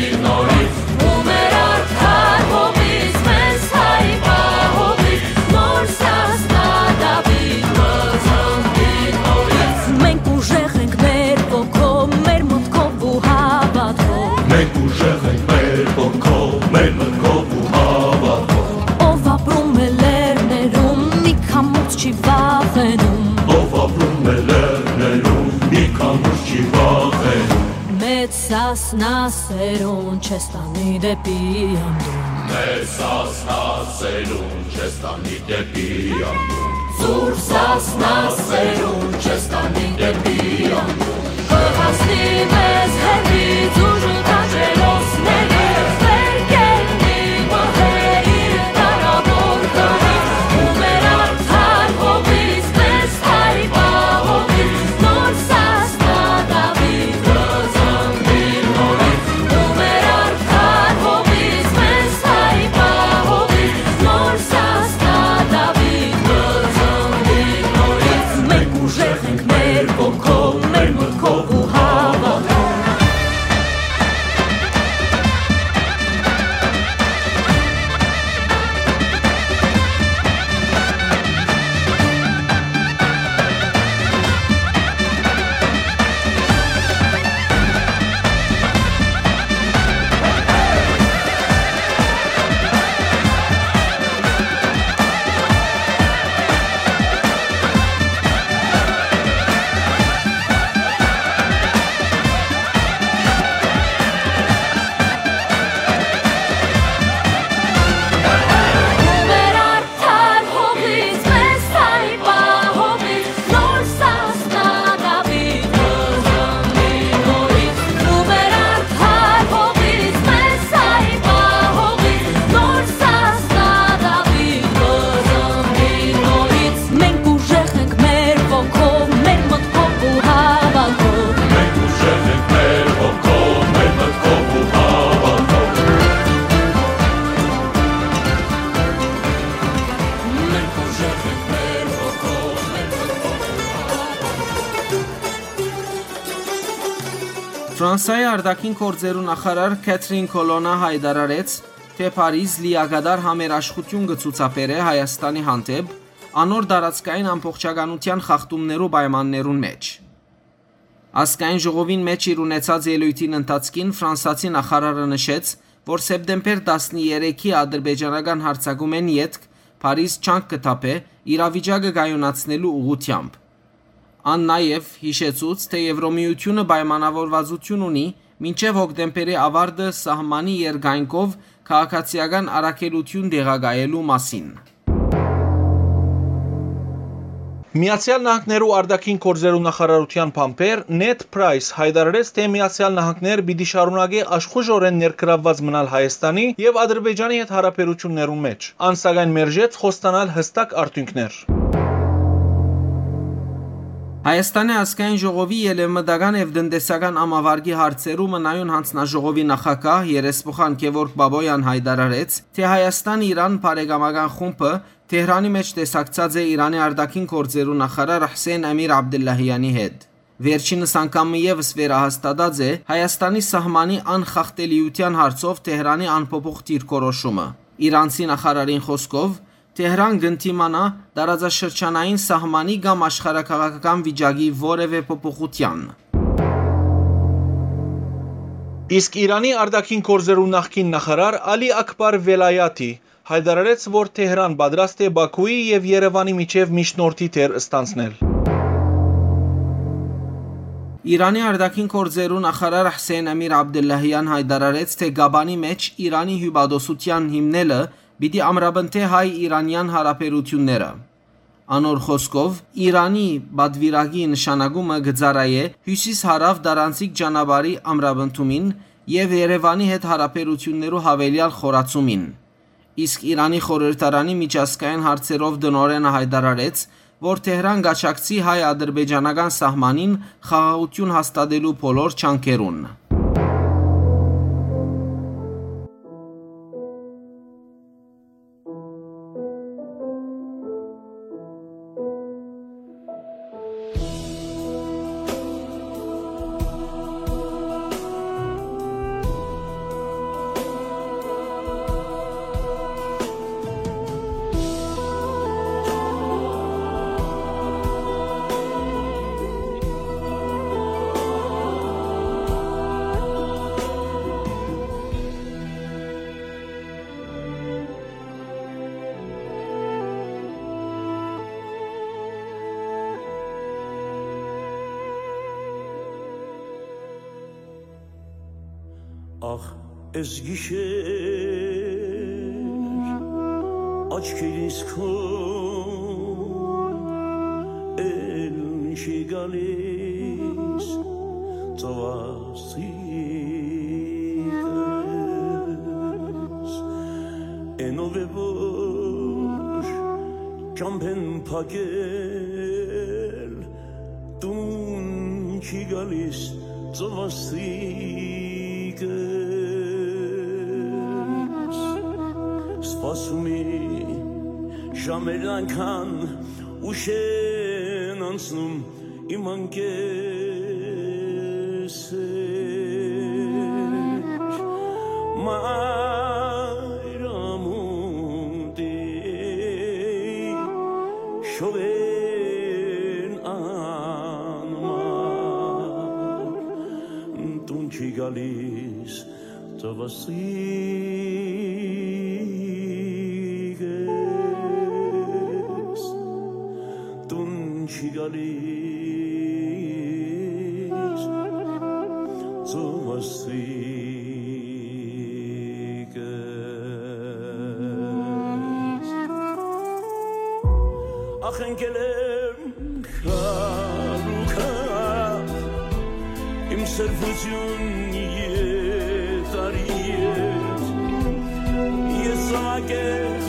Սասնա սերուն չես տանի դեպի անդուն։ Մեր Սասնա սերուն չես տանի դեպի անդուն։ Զուր Սասնա սերուն չես տանի դեպի անդուն։ Կհասնի մեզ հեռվից ուժ ու քաջերոսների, վեր կելնի մհեր իր դարաւոր գլից, ու մեր արդար հողից, մեզ հայ պահողից, նոր Սասնա Դաւիթ կը ծնվի նորից, ու մեր արդար հողից, մեզ հայ պահողից, նոր Սասնա Դաւիթ կը ծնվի նորից։ Մենք ուժեղ ենք մեր ոգով, մեր մտքով ու հավատով։ Մենք ուժեղ ենք մեր ոգով, մեր մտքով ու հավատով։ Մենք ուժեղ ենք մեր ոգով, մեր մտքով ու հավատով։ Մենք ուժեղ ենք մեր ոգով, մեր մտքով ու հավատով։ Ֆրանսայի արտաքին գործերու նախարար Քեթրին Քոլոնա յայտարարեց, թէ Փարիզ լիակատար համերաշխութիւն կը ցուցաբերէ Հայաստանի հանդէպ, անոր տարածքային ամբողջականութեան խախտումներու պայմաններուն մէջ։ Ազգային ժողովին մէջ իր ունեցած ելոյթին ընթացքին ֆրանսացի նախարարը նշեց, որ սեպտեմբեր տասներեքի ադրբեջանական յարձակումէն ետք Փարիզ ջանք կը թափէ իրավիճակը կայունացնելու ուղղութեամբ։ Ան նաեւ յիշեցուց, թէ Եվրոմիութիւնը պայմանաւորուածութիւն ունի մինչեւ հոկտեմբերի աւարտը սահմանի երկայնքով քաղաքացիական առաքելութիւն տեղակայելու մասին։ Միացեալ Նահանգներու արտաքին գործերու նախարարութեան բանբեր Նեդ Պրայս յայտարարեց, թէ Միացեալ Նահանգներ պիտի շարունակէ աշխուժօրէն ներգրաւուած մնալ Հայաստանի եւ Ադրբեջանի հետ հարաբերութիւններուն մէջ։ Ան, սակայն, մերժեց խոստանալ յստակ արդիւնքներ։ Հայաստանի ազգային ժողովի ելեւմտական եւ տնտեսական ամավարկի հարցերու մնայուն յանձնաժողովի նախագահ երեսփոխան Գեորգ Բաբոյան յայտարարեց, թէ Հայաստան-Իրան բարեկամական խումբը Թեհրանի մէջ տեսակցած է Իրանի արտաքին գործերու նախարար Հսեյն Ամիր Աբդուլլահյանի հետ։ Վերջինս անգամ մը եւս վերահաստատած է Հայաստանի սահմանի անխախտելիութեան հարցով Թեհրանի անփոփոխ դիրքորոշումը։ Իրանցի նախարարին խօսքով, Թեհրան կ'ընդդիմանայ տարածաշրջանային սահմանի կամ աշխարհաքաղաքական վիճակի որեւէ փոփոխութեան։ Իսկ Իրանի արտաքին գործերու նախկին նախարար Ալի Աքբար Վելայաթի յայտարարեց, որ Թեհրան պատրաստ է Բաքուի եւ Երեւանի միջեւ միջնորդի դեր ստանձնել։ Իրանի արտաքին գործերու նախարար Հսեյն Ամիր Աբդուլլահեան յայտարարեց, թէ Կաբանի մէջ Իրանի հիւպատոսութեան հիմնելը պիտի ամրապնդէ հայ-իրանեան հարաբերութիւնները։ Անոր խօսքով, Իրանի պատուիրակի նշանակումը կը ծառայէ հիւսիս-հարաւ տարանցիկ ճանապարհի ամրապնդումին եւ Երեւանի հետ հարաբերութիւններու յաւելեալ խորացումին։ Իսկ Իրանի խորհրդարանի միջազգային հարցերով տնօրէնը յայտարարեց, որ Թեհրան կաջակցի հայ-ադրբեջանական սահմանին խաղաղութիւն հաստատելու բոլոր ջանքերուն։ Ախ, այս գիշեր աչքերիս քո էլ չի գալիս ծովասիկս, էնով է որ ճամբեն փակել տուն չի գալիս ծովասիկս։ Սպասում է ժամերն անկան ուշ են անցնում իմ անկեսեր, մայրամուտի շողերն անմար տուն չի գալիս ծովասիկս, տուն չի գալիս ծովասիկս։ Ախ, ընկել եմ քարուքա, իմ սրբություն եթարի հետ, ես զաւակ եմ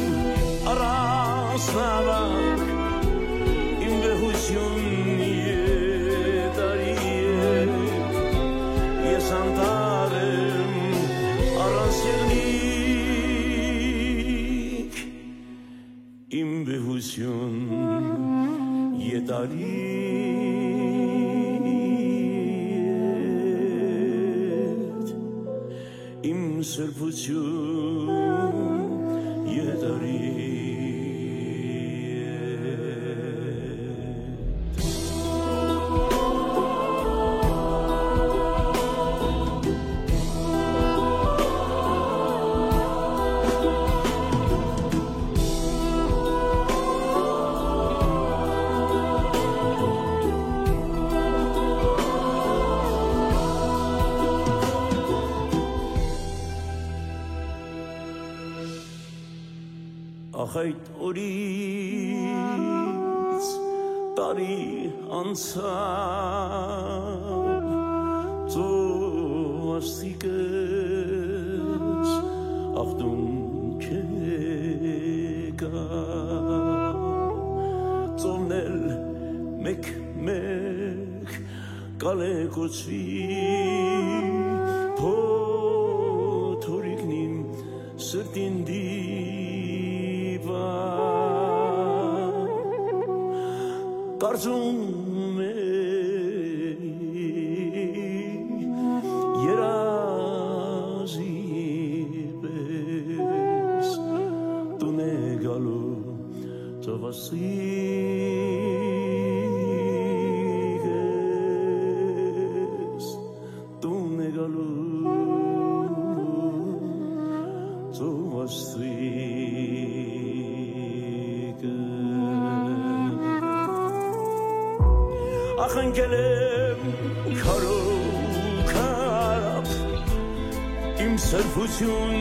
առանց նավակ, իմ վեհություն եթարի հետ, ես անտառ եմ առանց եղնիկ, իմ վեհություն եթարի հետ, իմ սրբություն եթարի հետ։ Ախ, այդ օրից տարի անցաւ, ծովասիկս ախտուն չեկայ, ծովն էլ մէկ-մէկ կալեկուցուի, փոթորիկն իմ սրտին դիպա, կարծում է երազի պես տուն է գալու ծովասիկս, տուն է գալու ծովասիկս։ Ախ, ընկել եմ քարով քարապ, իմ սրբություն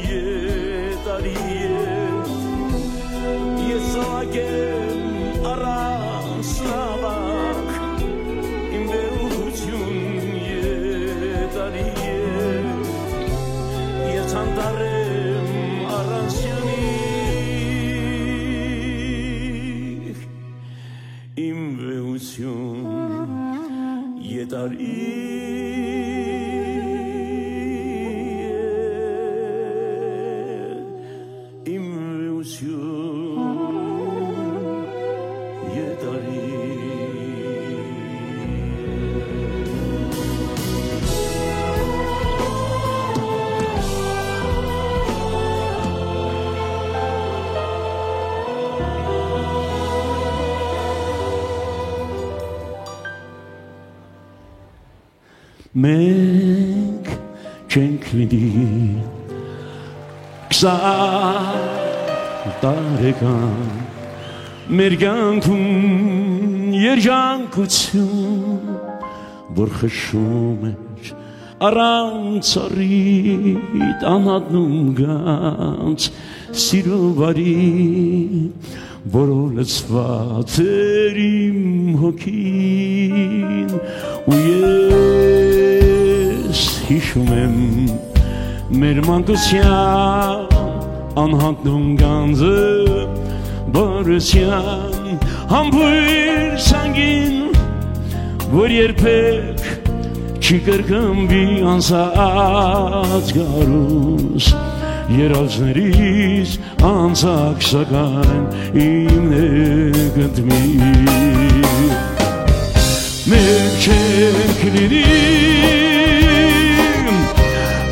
եթարի հետ, ես զաւակ եմ առանց նաւակ, իմ վեհություն եթարի հետ, ես անտառ եմ առանց եղնիկ, իմ վեհություն եթարի հետ, իմ վեհություն եթարի հետ։ Մենք չենք պիտի քսան տարեկան մեր կյանքում երջանկություն, որ խշում էր Առանց առիթ անհատնում գանձ սիրո վարի, որով լցուած էր իմ հոգին, ու ես յիշում եմ մեր մանկության անհատնում գանձը, բարության համբույր սանգին, որ երբեք չի կրկնուի անցած գարուս, երազներիս անցակ, սակայն իմ նկնդմի։ Մենք չենք լինի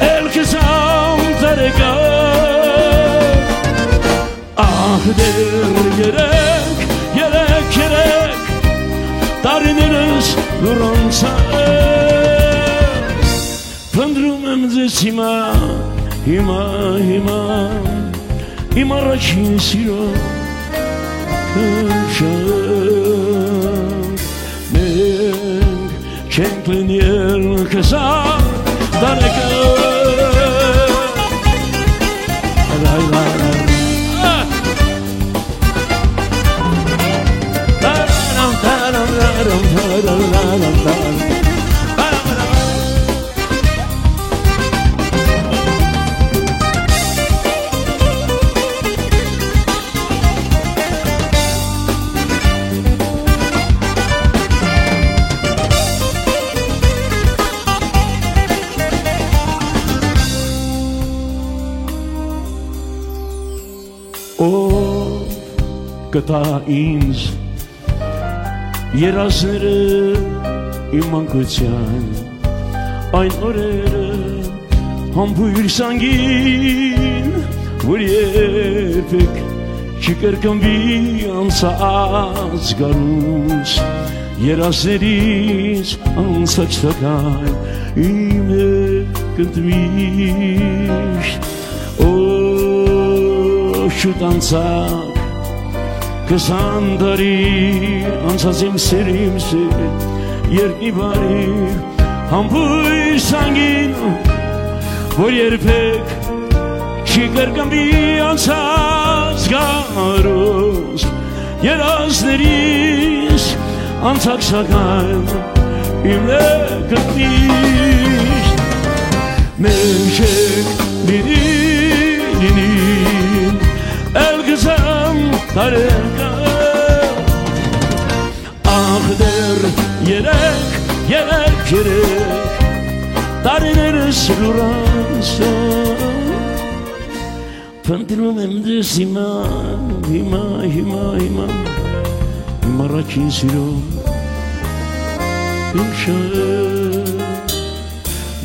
էլ քսան տարեկան, ահ, դեռ երեք, երեք, երեք տարիներս լուռ անցան։ Փնտռում եմ ձեզ հիմա, հիմա, հիմա, իմ առաջին սիրո քնշան։ Մենք չենք լինի ել քսան տարեկան։ Լայ, լայ, լայ։ Ա! Տարարամ, տարարամ, տարարամ, տարարամ, տարարամ։ Ով կտայ ինձ երազները իմ մանկության, այն օրերը համբույր սանգին, որ երբեք չի կրկնուի անցած գարուս, երազներիս անցած, սակայն իմ հետ միշտ։ Օ, շուտ անցակ քսան տարի, անցած իմ սեր, իմ սեր, երկնի բարի համբույր սանգին, որ երբեք չի կրկնուի անցած գարուս, երազներիս անցակ, սակայն իմ նկնդմի։ Մենք չենք լինի, լինի էլ քսան տարեկան, ախ, դեռ երեք, երեք, երեք տարիներս լուռ անցան։ Փնտռում եմ ձեզ հիմա, հիմա, հիմա, հիմա, իմ առաջին սիրո քնշան։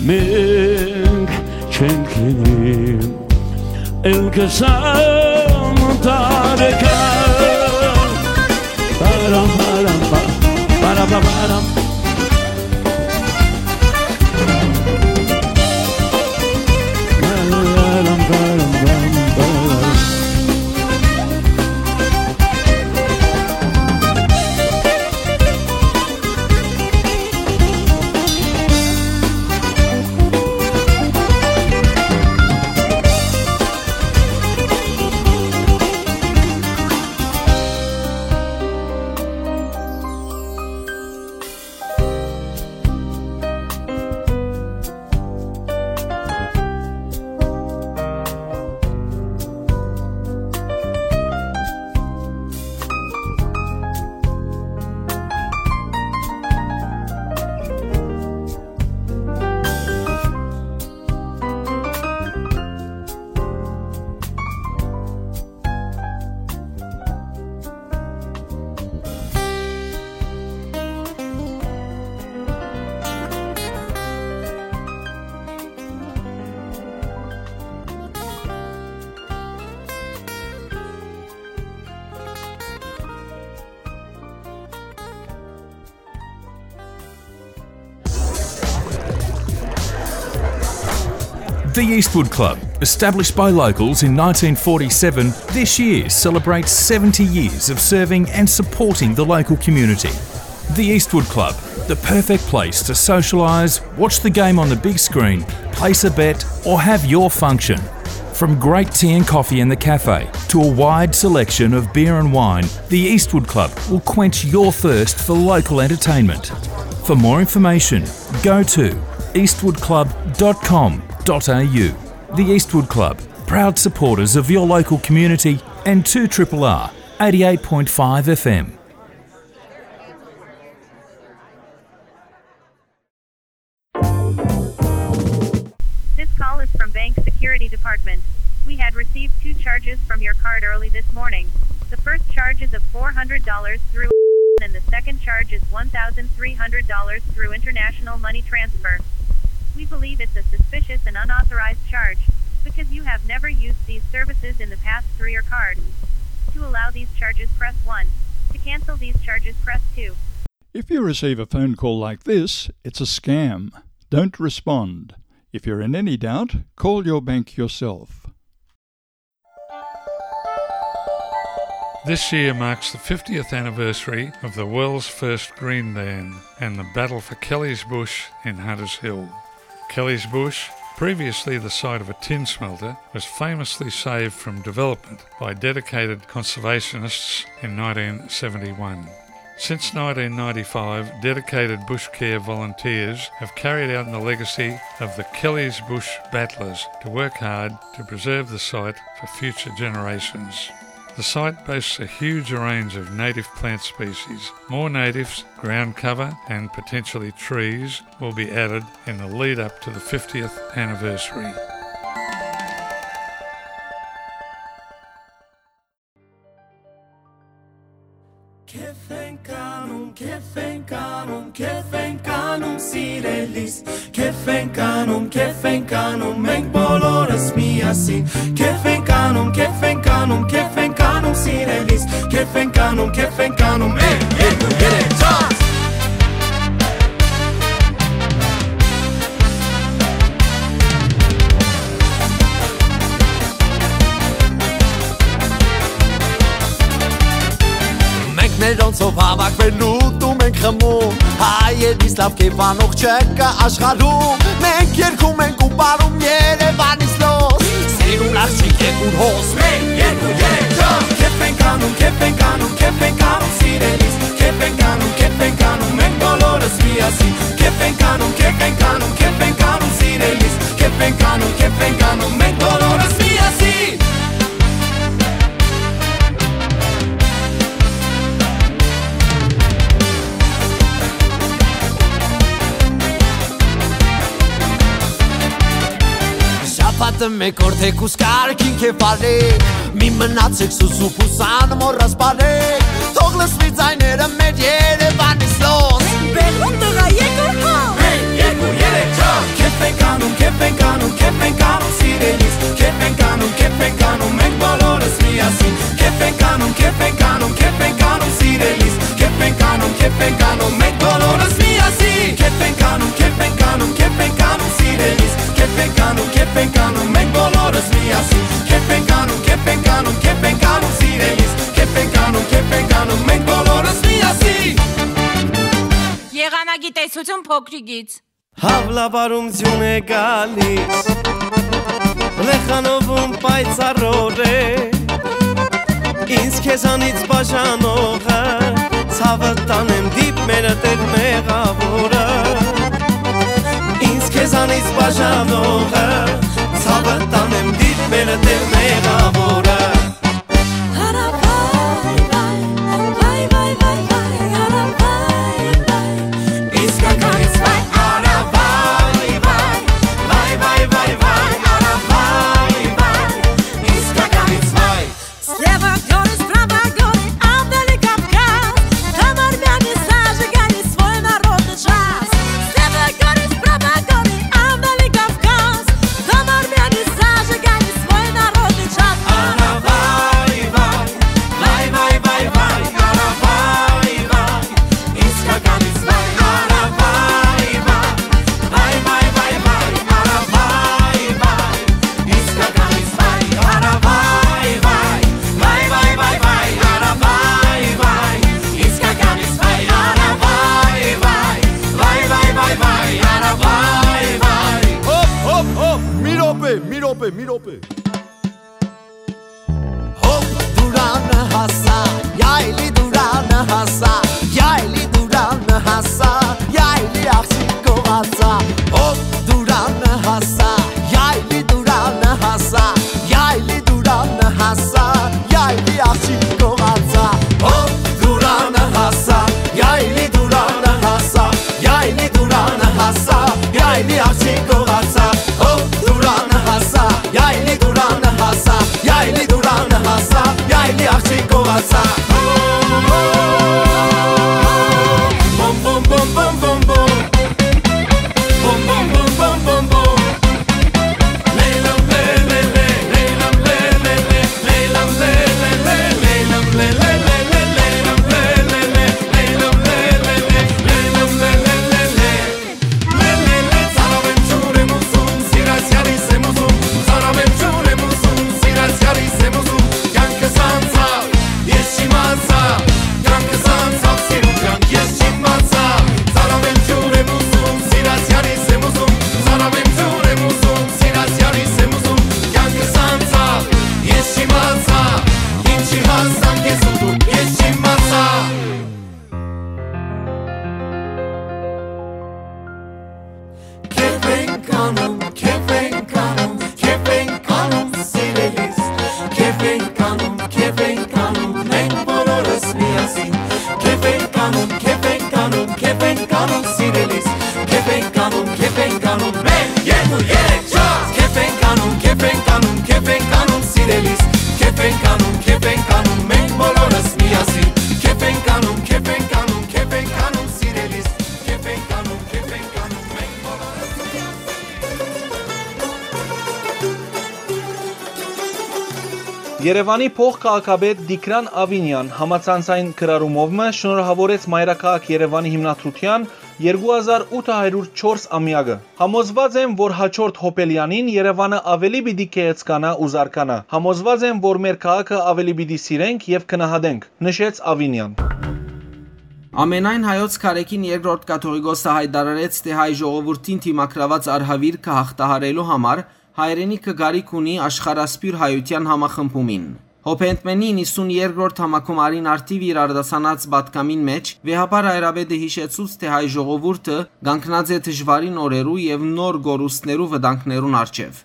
Մենք չենք լինի էլ քսան տարեկան։ Պարամ, պարամ, պա, պարա, պա, պարամ։ The Eastwood Club, established by locals in nineteen forty-seven, this year celebrates seventy years of serving and supporting the local community. The Eastwood Club, the perfect place to socialise, watch the game on the big screen, place a bet, or have your function. From great tea and coffee in the cafe to a wide selection of beer and wine, the Eastwood Club will quench your thirst for local entertainment. For more information, go to eastwood club dot com dot a u. The Eastwood Club, proud supporters of your local community and two triple R, eighty-eight point five F M. This call is from Bank Security Department. We had received two charges from your card early this morning. The first charge is of four hundred dollars through and the second charge is one thousand three hundred dollars through international money transfer. We believe it's a suspicious and unauthorized charge because you have never used these services in the past through your card. To allow these charges, press one. To cancel these charges, press two. If you receive a phone call like this, it's a scam. Don't respond. If you're in any doubt, call your bank yourself. This year marks the fiftieth anniversary of the world's first green dan and the battle for Kelly's Bush in Hunters Hill. Kelly's Bush, previously the site of a tin smelter, was famously saved from development by dedicated conservationists in nineteen seventy-one. Since nineteen ninety-five, dedicated bush care volunteers have carried out the legacy of the Kelly's Bush Battlers to work hard to preserve the site for future generations. The site boasts a huge range of native plant species. More natives, ground cover, and potentially trees will be added in the lead up to the fiftieth anniversary. Քեֆ ենք անում, քեֆ ենք անում, քեֆ ենք անում, սիրելիս։ Քեֆ ենք անում, քեֆ ենք անում, մենք բոլորս միասին։ Քեֆ ենք անում, քեֆ ենք անում, քեֆ ենք անում, սիրելիս։ Քեֆ ենք անում, քեֆ ենք անում, մեկ, երկու, երեք, չորս։ Մենք մերոնցով հավաքվելու դու մենք խմում, հայերիս լաւ կերպանող չկա աշխարհում։ Մենք երգում ենք ու պարում Երևանից լոզ, սիրուն աղջիկ, երկու հոս, մեկ, երկու, երեք, չորս։ Քեֆ ենք անում, քեֆ ենք անում, քեֆ ենք անում, սիրելիս։ Քեֆ ենք անում, քեֆ ենք անում, մենք բոլորս միասին։ Քեֆ ենք անում, քեֆ ենք անում, քեֆ ենք անում, սիրելիս։ Քեֆ ենք անում, քեֆ ենք անում, մենք բոլորս միասին։ Շաբաթը մեկ օր թեկուզ կարգին քեֆ արեք, մի մնացեք սուսուփ ու սան մոռաս բարեք, թող լսվի ձայները մեր Երևանից լոզ։ Բեղուն տղա, եկուր հա։ Մեկ, երկու, երեք, չորս։ Քեֆ ենք անում, քեֆ ենք անում, քեֆ ենք անում, սիրելիս։ Քեֆ ենք անում, քեֆ ենք անում, մենք բոլորս միասին։ Քեֆ ենք անում, քեֆ ենք անում, քեֆ ենք անում, սիրելիս։ Քեֆ ենք անում, քեֆ ենք անում, մենք բոլորս միասին։ Քեֆ ենք անում, քեֆ ենք անում, քեֆ ենք անում, սիրելիս։ Քեֆ ենք անում, քեֆ ենք անում, մենք բոլորս միասին։ Քեֆ ենք անում, քեֆ ենք անում, քեֆ ենք անում, սիրելիս։ Քեֆ ենք անում, քեֆ ենք անում, մենք բոլորս միասին։ Եղանակի տեսություն փոքրիկից։ Հաւլավարում ձիուն է գալիս, լեխանովում պայծառոր է, ինձ քեզանից բաժանողը, ցաւը տանեմ դիպ մեր տեր մեղավորը, ինձ քեզանից բաժանողը, ցաւը տանեմ դիպ մեր տեր մեղավորը։ Հարավայ, վայ, վայ, վայ, վայ, վայ, հարավայ, վայ, իսկականից վայ, հարավայ, վայ, վայ, վայ, վայ, վայ, հարավայ, վայ, իսկականից վայ։ Слева горы, справа горы, а вдали Кавказ. Там армяне зажигали свой народный джаз. Слева горы, справа горы, а вдали Кавказ. Там армяне зажигали свой народный джаз. Պէ, մի րոպէ։ Հոպ, Դուրանը հասա, Յայլի Դուրանը հասա, Յայլի Դուրանը հասա, Յայլի աղջիկ գողացա։ Հոպ, Դուրանը հասա, Յայլի Դուրանը հասա, Յայլի Դուրանը հասա, Յայլի աղջիկ գողացա։ Հոպ, Դուրանը հասա, Յայլի Դուրանը հասա, Յայլի Դուրանը հասա, Յայլի աղջիկ գողացա։ Հոպ, Դուրանը հասա, Յայլի Դուրանը հասա, Յայլի Դուրանը հասա, Յայլի աղջիկ գողացա։ Բոմ, բոմ, բոմ, բոմ, բոմ, բոմ։ Բոմ, բոմ, բոմ, բոմ, բոմ, բոմ։ Լեյլամ, լե, լե, լե, լեյլամ, լե, լե, լե, լեյլամ, լե, լե, լե, լեյլամ, լե, լե, լե, լեյլամ, լե, լե, լե, լեյլամ, լե, լե, լե, լե, լե, լե, լե, ծարաւ եմ, ջուր եմ ուզում, սիրած յարիս եմ ուզում, ծարաւ եմ, ջուր եմ ուզում, սիրած յարիս եմ ուզում, կյանքս անցա, ես չիմացայ, կյանքս անցաւ, սիրուն կյանք, ես չիմացայ, ծարաւ եմ, ջուր եմ ուզում, սիրած յարիս եմ ուզում, ծարաւ եմ, ջուր եմ ուզում, սիրած յարիս եմ ուզում, կյանքս անցաւ, ես չիմացայ, ինչի հասան քեզ ուտում, ես չիմացայ։ Քեֆ ենք անում, քեֆ ենք անում, քեֆ ենք անում, սիրելիս։ Քեֆ ենք անում, քեֆ ենք անում, մենք բոլորս միասին։ Քեֆ ենք անում, քեֆ ենք անում, քեֆ ենք անում, սիրելիս։ Քեֆ ենք անում, քեֆ ենք անում, մեկ, երկու, երեք, չորս։ Քեֆ ենք անում, քեֆ ենք անում, քեֆ ենք անում, սիրելիս։ Քեֆ ենք անում, քեֆ ենք անում, մենք բոլորս միասին։ Քեֆ ենք անում, քեֆ ենք անում, քեֆ ենք անում, սիրելիս։ Քեֆ ենք անում, քեֆ ենք անում, մենք բոլորս միասին։ Երեւանի փոխ քաղաքապետ Տիգրան Ավինեան համացանցային գրառումով մը շնորհաւորեց մայրաքաղաք Երեւանի հիմնադրութեան երկու հազար ութ հարիւր չորս ամեակը։ «Համոզուած եմ, որ հաջորդ Հոպելեանին Երեւանը աւելի պիտի գեղեցկանայ ու զարգանայ։ Համոզուած եմ, որ մեր քաղաքը աւելի պիտի սիրենք եւ գնահատենք», նշեց Ավինեան։ Ամենայն հայոց Քարէքին երկրորդ կաթողիկոսը յայտարարեց, թէ հայ ժողովուրդին դիմագրաւած արհաւիրքը յաղթահարելու համար հայրենիքը կարիք ունի աշխարհասփիւռ հայութեան համախմբումին։ Հոփենդմենի իննսուն երկրորդ համագումարին արդիւ իր արտասանած պատգամին մէջ վեհափառ հայրապետը յիշեցուց, թէ հայ ժողովուրդը կանգնած է դժուարին օրերու եւ նոր կորուստներու վտանգներուն առջեւ։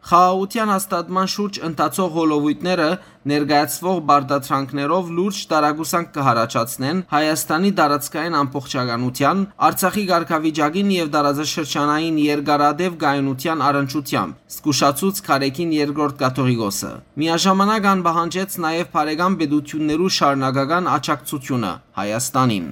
Խաղաղութեան հաստատման շուրջ ընթացող հոլովոյթները ներկայացուող պարտադրանքներով լուրջ տարակուսանք կը յառաջացնեն Հայաստանի տարածքային ամբողջականութեան, Արցախի կարգավիճակին եւ տարածաշրջանային երկարատեւ կայունութեան առնչութեամբ, զգուշացուց Քարէքին երկրորդ կաթողիկոսը։ Միաժամանակ ան պահանջեց նաեւ բարեկամ պետութիւններու շարունակական աջակցութիւնը Հայաստանին։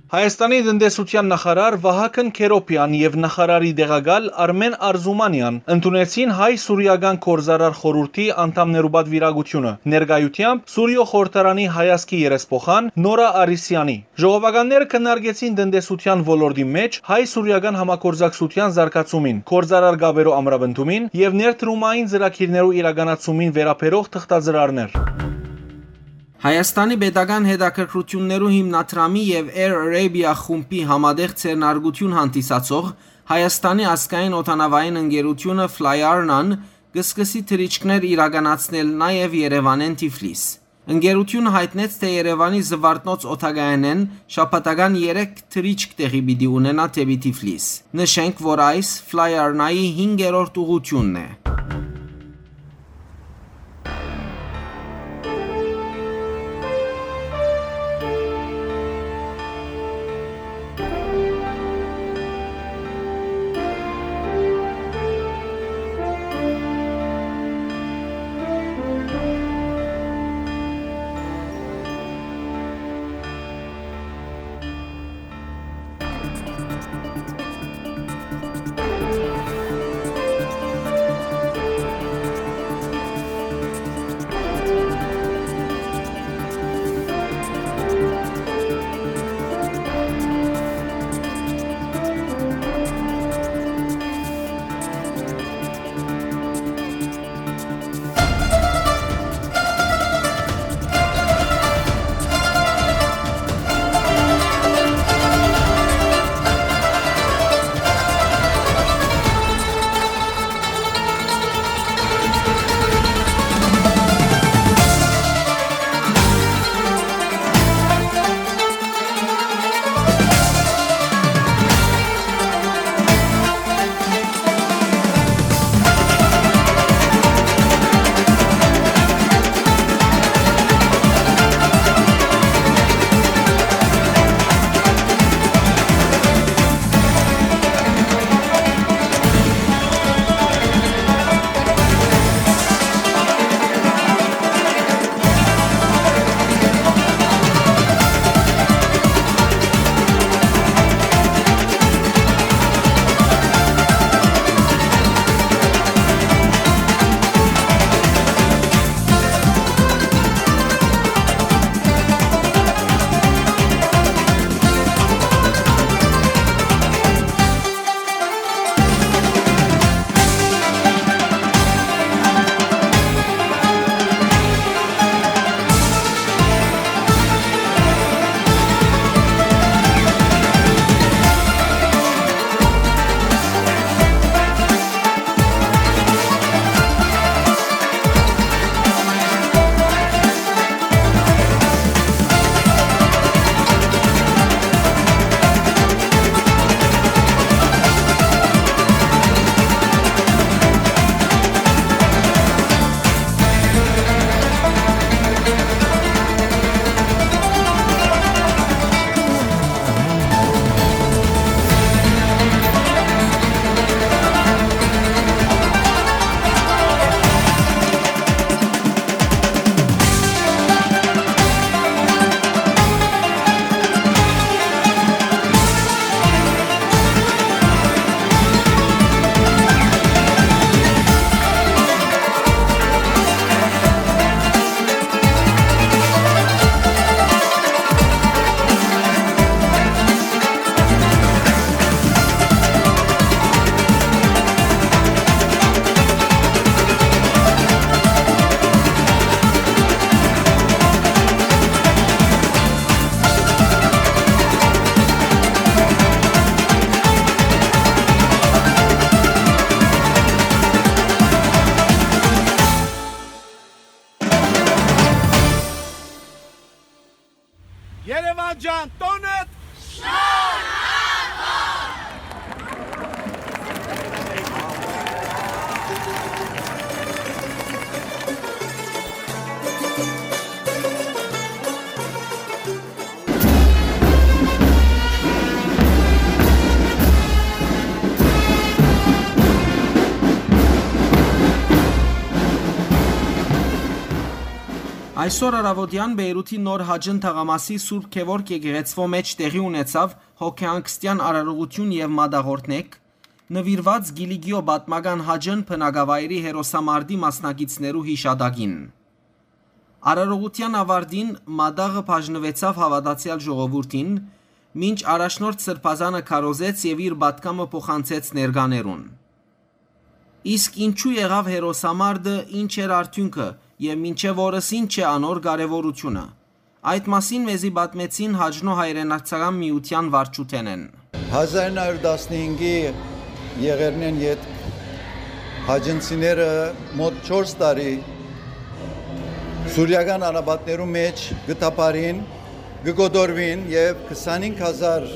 Հայաստանի տնտեսութեան նախարար Վահագն Քերոփեան եւ նախարարի տեղակալ Արմեն Արզումանեան ընդունեցին հայ-սուրիական գործարար խորհուրդի անդամներու պատվիրակութիւնը, ներկայութեամբ Սուրիոյ խորհրդարանի հայազգի երեսփոխան Նորա Արիսեանի։ Ժողովականները քննարկեցին տնտեսութեան ոլորտի մէջ հայ-սուրիական համագործակցութեան զարգացումին, գործարար կապերու ամրապնդումին եւ ներդրումային ծրագիրներու իրականացումին վերաբերող թղթածրարներ։ Հայաստանի պետական հետաքրքրութիւններու հիմնադրամի եւ Air Arabia խումբի համատեղ ձեռնարկութիւն հանդիսացող Հայաստանի ազգային օդանաւային ընկերութիւնը Fly Arna-ն կը սկսի թռիչքներ իրականացնել նաեւ Երեւանէն Թիֆլիս։ Ընկերութիւնը յայտնեց, թէ Երեւանի Զուարթնոց օդակայանէն շաբաթական երեք թռիչք տեղի պիտի ունենայ դէպի Թիֆլիս։ Նշենք, որ այս Fly Arna-ի հինգերորդ ուղղութիւնն է։ Այսօր առաւօտեան Բեյրութի նոր Հաճն թաղամասի Սուրբ Գեորգ եկեղեցւոյ մէջ տեղի ունեցաւ հոգեհանգստեան արարողութիւն եւ մատաղօրհնէք, նուիրուած Կիլիկիոյ պատմական Հաճն բնակավայրի հերոսամարտի մասնակիցներու յիշատակին։ Արարողութեան աւարտին մատաղը բաժնուեցաւ հաւատացեալ ժողովուրդին, մինչ առաջնորդ սրբազանը քարոզեց եւ իր պատգամը փոխանցեց ներկաներուն։ Իսկ ինչու եղաւ հերոսամարտը, ինչ էր արդիւնքը եւ մինչեւ օրս ինչ է անոր կարեւորութիւնը։ Այդ մասին մեզի պատմեցին Հաճնոյ հայրենասցական միութեան վարչութենէն։ Հազար ինը հարիւր տասնհինգի եղերնէն ետք հաճնցիները մօտ չորս տարի սուրիական անապատներու մէջ կը թափառին, կը կոտորուին եւ քսանհինգ հազար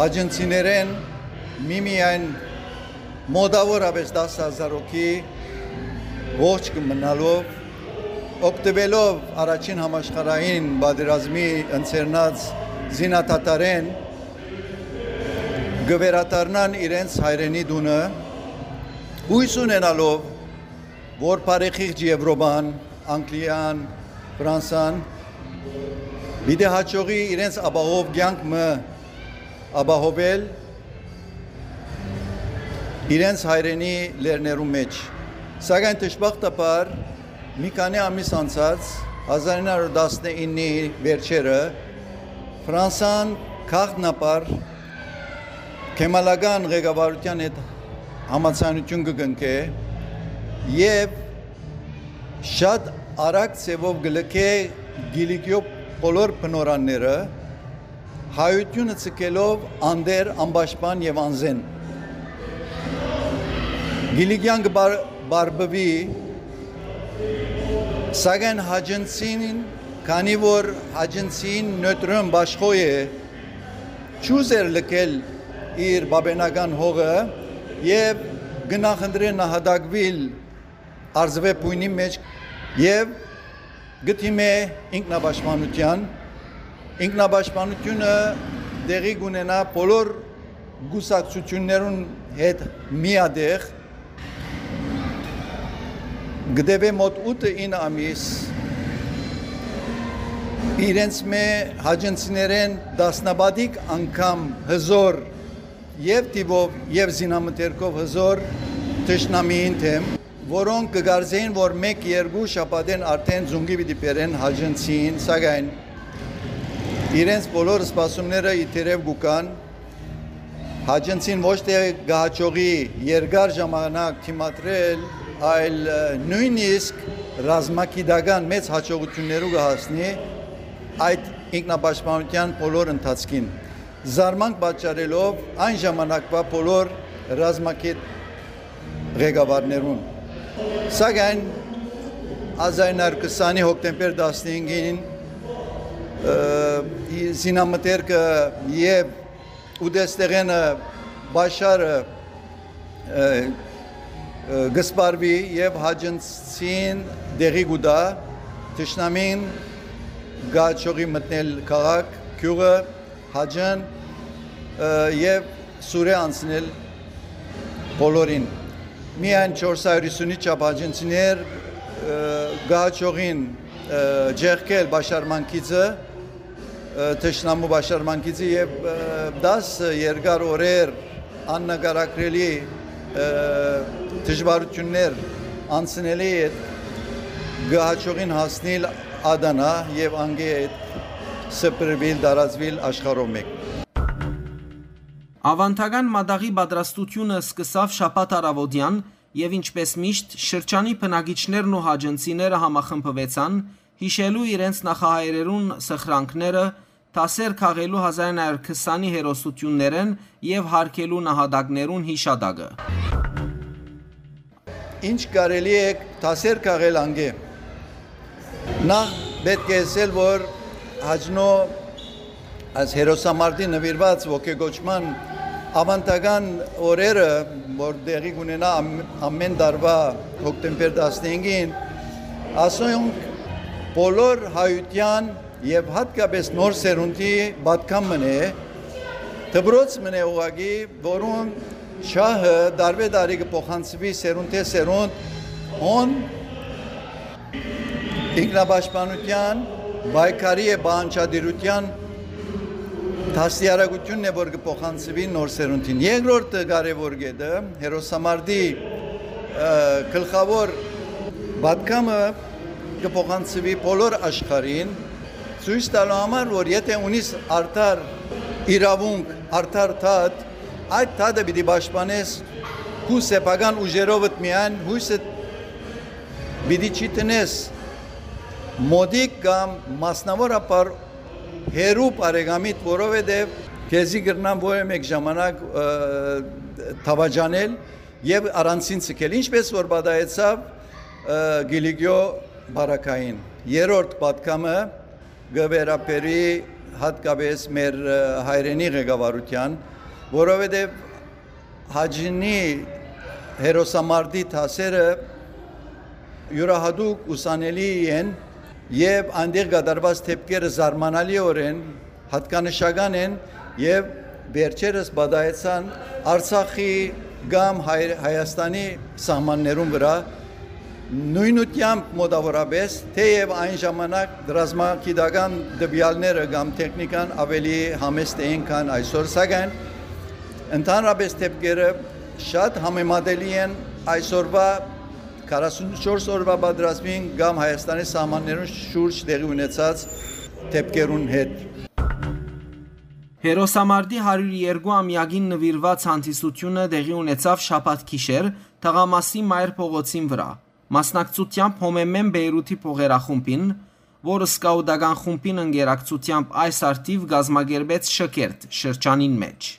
հաճնցիներէն միմիայն մոտաւորապէս տասը հազար հոգի ողջ կը մնալով, օգտուելով առաջին համաշխարհային պատերազմի ընձեռնած զինադադարէն, կը վերադառնան իրենց հայրենի տունը, յոյս ունենալով, որ բարեխիղճ Եւրոպան, Անգլիան, Ֆրանսան պիտի յաջողի իրենց ապահով կեանք մը ապահովել իրենց հայրենի լեռներու մէջ։ Սակայն դժբախտաբար մի քանի ամիս անցած, հազար ինը հարիւր տասնինի վերջերը, Ֆրանսան գաղտնաբար քեմալական ղեկավարութեան հետ համաձայնութիւն կը կնքէ եւ շատ արագ ձեւով կը լքէ Կիլիկիոյ բոլոր բնօրրանները, հայութիւնը ձգելով անտեր, անպաշտպան եւ անզէն։ Կիլիկիան կը բար-, բարբուի, սակայն հաճնցին, քանի որ հաճնցին նոյտրոն բաշխոյ է, չուզեր լքել իր բաբենական հողը եւ կը նախընտրէ նահատակուիլ Արզուէ բոյնի մէջ եւ կը դիմէ ինքնապաշտպանութեան։ Ինքնապաշտպանութիւնը տեղի կունենայ բոլոր կուսակցութիւններուն հետ միատեղ, կը տեւէ մօտ ութը ինը ամիս, իրենց մէ հաճնցիներէն տասնապատիկ անգամ հզօր եւ թիւով եւ զինամթերքով հզօր թշնամիին դէմ, որոնք կը կարծէին, որ մէկ-երկու շաբաթէն արդէն զունկի պիտի բերեն հաճնցին, սակայն իրենց բոլոր սպասումները ի դերեւ կու գան։ Հաճնցին ոչ թէ կը յաջողի երկար ժամանակ դիմադրել, այլ, ը, նոյնիսկ ռազմագիտական մեծ յաջողութիւններու կը հասնի այդ ինքնապաշտպանութեան բոլոր ընթացքին, զարմանք պատճառելով այն ժամանակվա բոլոր ռազմագետ ղեկավարներուն։ Սակայն հազար ինը հարիւր քսանի հոկտեմբեր տասնհինգին, ը, զինամթերքը եւ ուտեստեղէնը Բաշարը, ը, ը, կը սպառուի եւ հաճնցին տեղի կու տայ, թշնամին կը յաջողի մտնել քաղաք, գիւղը, Հաճն, ը, եւ Սուրէ անցնել բոլորին։ Միայն չորս հարիւր յիսունի չափ հաճնցիներ, ը, կը յաջողին, ը, ճեղքել պաշարման գիծը, ը, թշնամու պաշարման գիծը եւ, ը, տասը երկար օրեր աննկարագրելի, ը, դժուարութիւններ անցնելէ ետք կը յաջողին հասնիլ Ադանա եւ անկէ հետ սփռուիլ, տարածուիլ աշխարհով մէկ։ Աւանդական մատաղի պատրաստութիւնը սկսաւ շաբաթ առաւօտեան եւ, ինչպէս միշտ, շրջանի բնակիչներն ու հաճնցիները համախմբուեցան՝ յիշելու իրենց նախահայրերուն սխրանքները, դասեր քաղելու հազար ինը հարիւր քսանի հերոսութիւններէն եւ յարգելու նահատակներուն յիշատակը։ Ինչ կարելի է դասեր քաղել անկէ։ Նախ պէտք է ըսել, որ Հաճնոյ Այս հերոսամարտի նուիրուած ոգեկոչման աւանդական օրերը, որ տեղի կունենայ ամ-, ամէն տարուայ հոկտեմբեր տասնհինգին, ասոնք բոլոր հայութեան եւ յատկապէս նոր սերունդի պատգամ մըն է, դպրոց մըն է ուղղակի, որուն շահը տարուէ տարի կը փոխանցուի սերունդէ սերունդ, հոն ինքնապաշտպանութեան, պայքարի եւ պահանջատիրութեան դաստիարակութիւնն է, որ կը փոխանցուի նոր սերունդին։ Երկրորդ կարեւոր կետը, հերոսամարտի, ը, գլխաւոր պատգամը կը փոխանցուի բոլոր աշխարհին, ցոյց տալու համար, որ եթէ ունիս արդար իրաւունք, արդար դատ, այդ դատը պիտի պաշտպանես քու սեփական ուժերովդ միայն, յոյսը պիտի չի տնես մօտիկ կամ մասնաւորաբար հեռու բարեկամիդ, որովհետեւ քեզի կրնան որեւէ մէկ ժամանակ, ը, դաւաճանել եւ առանցին ցկել, ինչպէս որ պատահեցաւ, ը, Կիլիկիո բարակային։ Երրորդ պատգամը կը վերաբերի յատկապէս մեր, ը, հայրենի ղեկավարութեան, որովհետեւ Հաճնի հերոսամարտի դասերը իւրայատուկ ուսանելի են եւ այնտեղ կատարուած դէպքերը զարմանալիօրէն յատկանշական են եւ վերջերս պատահեցան Արցախի կամ Հայ-, Հայաստանի սահմաններուն վրայ նոյնութեամբ մոտաւորապէս, թէեւ այն ժամանակ ռազմագիտական տուեալները կամ տեխնիկան աւելի համեստ էին, քան այսօր, սակայն ընդհանրապէս դէպքերը շատ համեմատելի են այսօրուայ քառասունչորս օրուայ պատերազմին կամ Հայաստանի սահմաններուն շուրջ տեղի ունեցած դէպքերուն հետ։ Հերոսամարտի հարիւր երկու ամեակին նուիրուած հանդիսութիւնը տեղի ունեցաւ շաբաթ գիշեր Թաղամասի Մայր փողոցին վրայ, մասնակցութեամբ Հոմեմեն Բեյրութի փողերախումբին, որ սկաուտական խումբին ընկերակցութեամբ այս առթիւ կազմակերպեց Շքերթ շրջանին մէջ։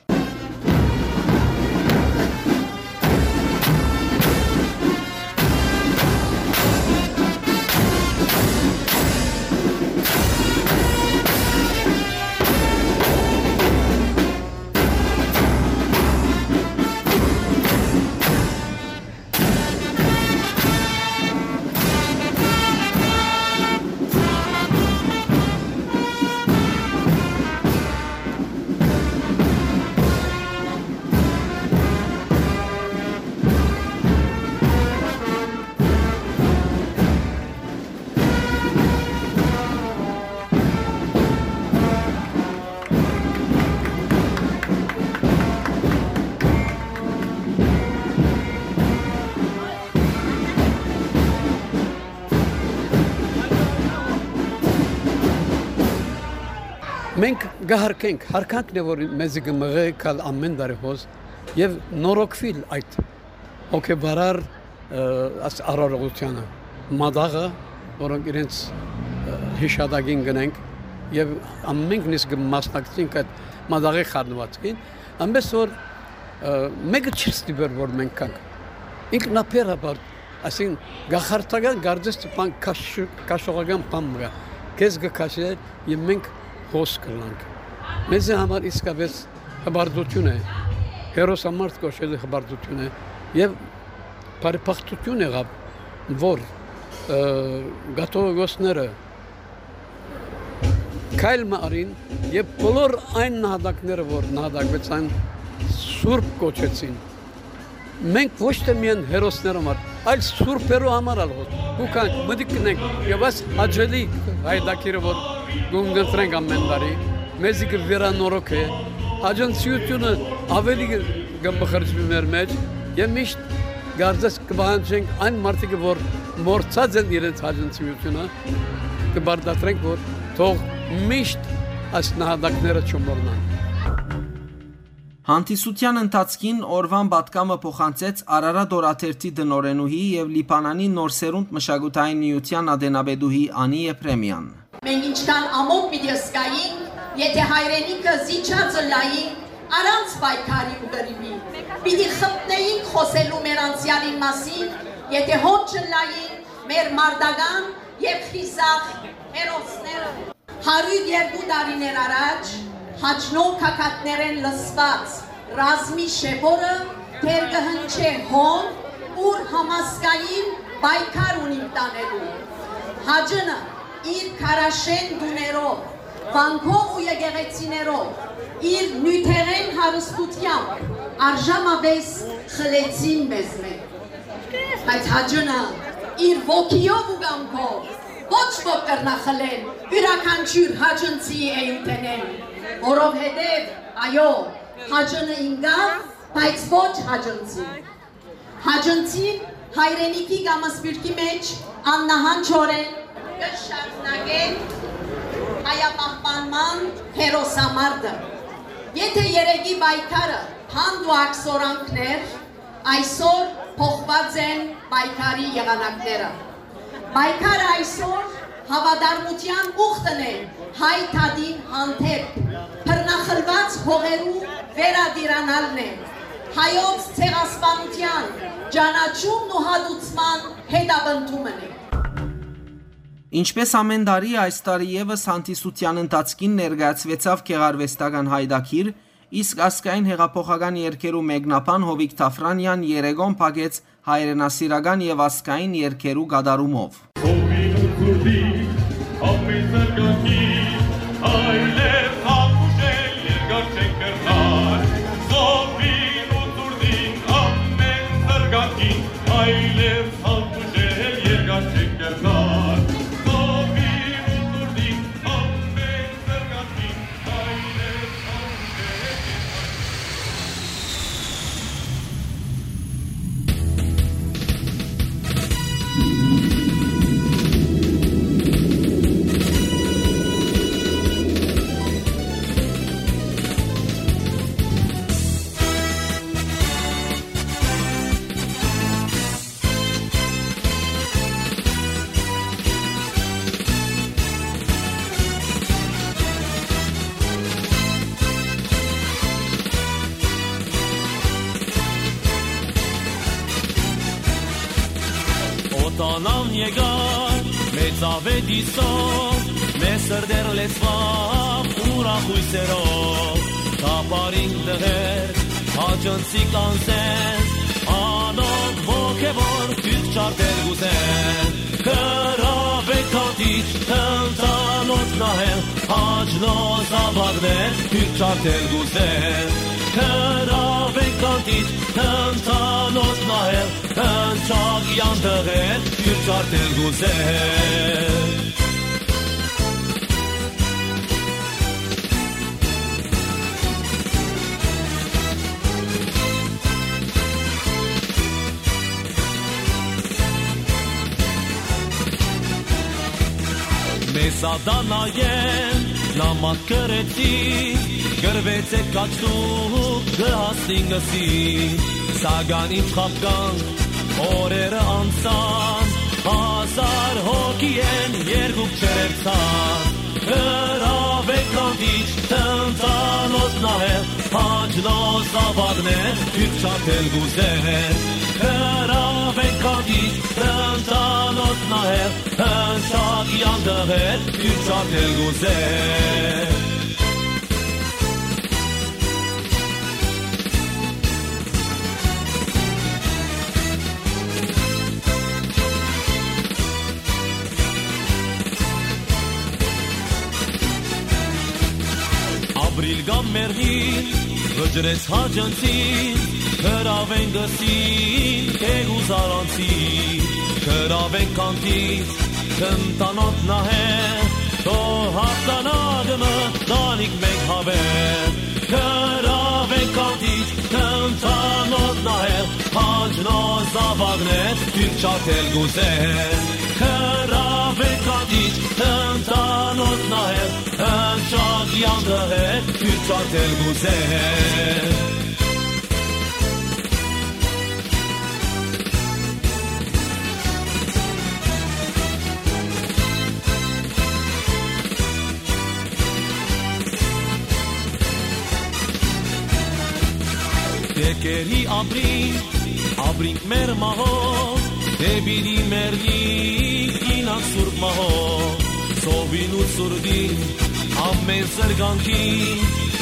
Մենք կը հարգենք, հարգանքն է, որ մեզի կը մղէ գալ ամէն տարի հոս եւ նորոգուիլ այդ հոգեվարար, ը, աս արարողությանը, մատաղը, որոնք իրենց, ը, յիշատակին կ'ընենք եւ ամենքնիս կը մասնակցենք այդ մատաղի խառնուածքին, այնպես որ, ը, մեկը չի ստիպեր, որ մենք գանք։ Ինքնաբերաբար, այսինքն, գաղթական կարծես թե բան քաշ-, քաշողական բան մը կայ, քեզ կը քաշէ եւ մենք հոս կ'ըլլանք։ Մեզի համար իսկապէս հպարտութիւն է, հերոսամարտ կոչելը հպարտութիւն է եւ բարեբախտութիւն եղաւ, որ, ը, կաթողիկոսները քայլ մը առին եւ բոլոր այն նահատակները, որ նահատակվեցան, սուրբ կոչեցին։ Մենք ոչ թե միայն հերոսներու համար, այլ սուրբերու համար ալ հոս։ Ու կանք մտիկ կ'ընենք եւ այս հաճելի հայդակիրը, որ կ'ունկնդրենք ամէն տարի, մեզի կը վերանորոգէ, աջնցիութիւնը աւելի կը, կը մխրճուի մեր մեջ եւ միշտ կարծես կը պահանջենք այն մարդիկը, որ մոռցած են իրենց աջնցիութիւնը, կը պարտադրենք, որ թող միշտ այս նահատակները չմոռնան։ Հանդիսութեան ընթացքին օրուան պատգամը փոխանցեց Արարատ օրաթերթի տնօրենուհի եւ Լիբանանի Նոր Սերունդ մշակութային միութեան ատենապետուհի Անի Եփրեմեան։ Մենք ինչքան ամոթ պիտի զգայինք, եթե հայրենիքը զիջած ըլլայինք առանց պայքարի ու կռիւի, պիտի խփնէինք խօսելու մեր անցեալին մասին, եթե հոն չըլլային մեր մարտական եւ խիզախ հերոսները։ Հարիւր երկու տարիներ առաջ Հաճնոյ գագաթներէն լսուած ռազմի շեփորը դեռ կը հնչէ հոն, ուր համազգային պայքար ունինք տանելու։ Հաճնը իր քարաշեն տուներով, վանքով ու եկեղեցիներով, իր նիւթերէն հարստութեամբ արժանապէս խլեցին մեզմէ։ Բայց Հաճնը իր ոգիով ու կամքով ոչ ոք կրնայ խլել իւրաքանչիւր հաճնցիի էութենէն, որովհետեւ, այո, Հաճնը ինկաւ, բայց ոչ հաճնցին։ Հաճնցին հայրենիքի կամ սփիւռքի մէջ աննահանջօրէն կը շարունակեն հայապահպանման հերոսամարտը։ Եթէ երեկի պայքարը հանդ ու ակսորանքն էր, այսօր փոխուած են պայքարի եղանակները։ Պայքարը այսօր հաւատարմութեան ուխտն է հայ դատին հանդէպ, բռնախլուած հողերու վերատիրանալն է, հայոց ցեղասպանութեան ճանաչումն ու հատուցման հետապնդումն է։ Ինչպէս ամէն տարի, այս տարի եւս հանդիսութեան ընթացքին ներկայացուեցաւ գեղարուեստական յայտագիր, իսկ ազգային հեղափոխական երգերու մեկնաբան Յովիկ Թաֆրանեան երեկոն փակեց հայրենասիրական եւ ազգային երգերու կատարումով։ Սովին ու ցուրտին, ամեն զարգանքի, այլեւ հատուշել երկար չեն կրնար։ Սովին ու ցուրտին, ամեն զարգանքի, այլեւ հատուշել երկար չեն կրնար։ Սովին ու ցուրտին, ամեն զարգանքի, այլեւ հատուշել երկար չեն կրնար։ Օտանան եկար, մեծ աւետիսով, մեր սրտեր լեցուաւ ուրախ հոյսերով, թափառին տղեր, հաճնցիկ անձեր, անոնք ոգեւոր դուք չարդեր կ'ուզեն։ Գրաւէ քանտիչ, թնդանոց նահեր, հաճնոց զաւակներ, դուք չարդեր կ'ուզեն։ Գրաւէ քանտիչ, թնդանոց նահեր, հնչակեան տղեր, դուք չարդեր կ'ուզեն։ Մեզ ատանայեն նամակ գրեցի, գրվեցէ քաչտուկ կը հասնին ըսի, սակայն ինչ խաբկանք օրերը անցան, հազար հոգի են երկուք չերևցան, հրաւէ քանտիչ թնդանոց նահեր, հաճնոց զաւակներ, դուք չարդեր կ'ուզեն, հրաւէ քանտիչ թնդանոց նահեր, հնչակեան տղեր, դուք չարդեր կ'ուզեն։ Ապրիլ կամ մեռնիլ, վճռեց հաճնցին, գրաւեն գսին, թեգուզ առանցին, գրաւեն քանտիչ, թնդանոց նահեր, թող հաղթանակը մտանիք մենք հավեր, գրաւեն քանտիչ, թնդանոց նահեր, հաճնոց զաւակներ, դուք չարդեր կ'ուզեն, գրաւեն քանտիչ, թնդանոց նահեր, հնչակեան տղեր, դուք չարդեր կ'ուզեն։ Դեկերի ապրի, ապրինք մեր մահով, դե պիտի մեռնի կինակ սուրբ մահով, սովին ու սուրդին, ամեն զրկանքի,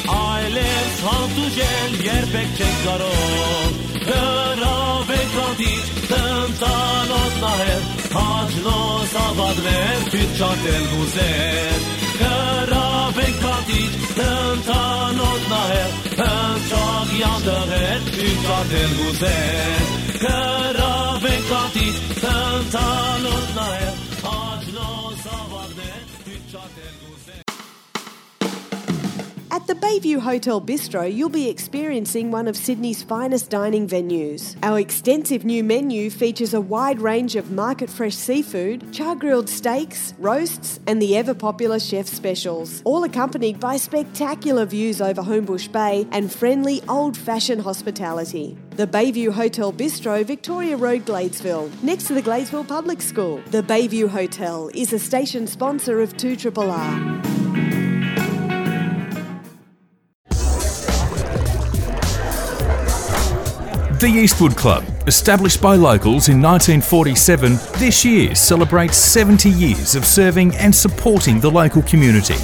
Այլեւ հանդուրժել երբեք չենք կարող։ Հրաւենք հանդիճ, տնտանոց նահեր, հաճնոց ավագներ, թիթ չարդել կուզեր։ Հրաւենք հանդիճ, տնտանոց նահեր, հնչող յանդղեր, թիթ չարդել կուզեր։ Հրաւենք հանդիճ, տնտանոց նահեր, հաճնոց ավագներ, թիթ չարդել կուզեր։ At the Bayview Hotel Bistro, you'll be experiencing one of Sydney's finest dining venues. Our extensive new menu features a wide range of market fresh seafood, char grilled steaks, roasts, and the ever popular chef specials, all accompanied by spectacular views over Homebush Bay and friendly old fashioned hospitality. The Bayview Hotel Bistro, Victoria Road, Gladesville, next to the Gladesville Public School. The Bayview Hotel is a station sponsor of two triple R. The Eastwood Club, established by locals in nineteen forty-seven, this year celebrates seventy years of serving and supporting the local community.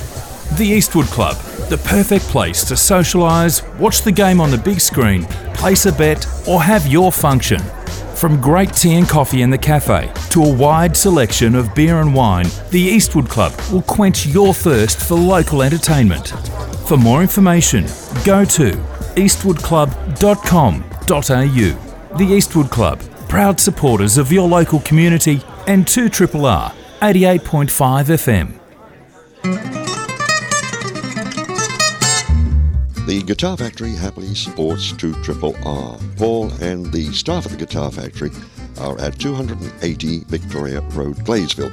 The Eastwood Club, the perfect place to socialise, watch the game on the big screen, place a bet, or have your function. From great tea and coffee in the cafe to a wide selection of beer and wine, the Eastwood Club will quench your thirst for local entertainment. For more information, go to eastwood club dot com dot a u. The Eastwood Club, proud supporters of your local community and two triple R, eighty-eight point five F M. The Guitar Factory happily supports two triple R. Paul and the staff of the Guitar Factory are at two hundred and eighty Victoria Road, Gladesville.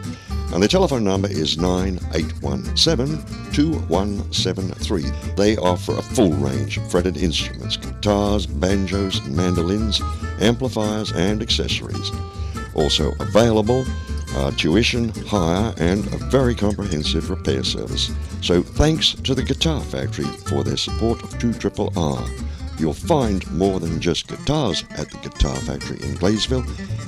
And the telephone number is nine eight one seven, two one seven three. They offer a full range of fretted instruments, guitars, banjos, mandolins, amplifiers, and accessories. Also available are tuition, hire, and a very comprehensive repair service. So thanks to the Guitar Factory for their support of two triple R. You'll find more than just guitars at the Guitar Factory in Gladesville,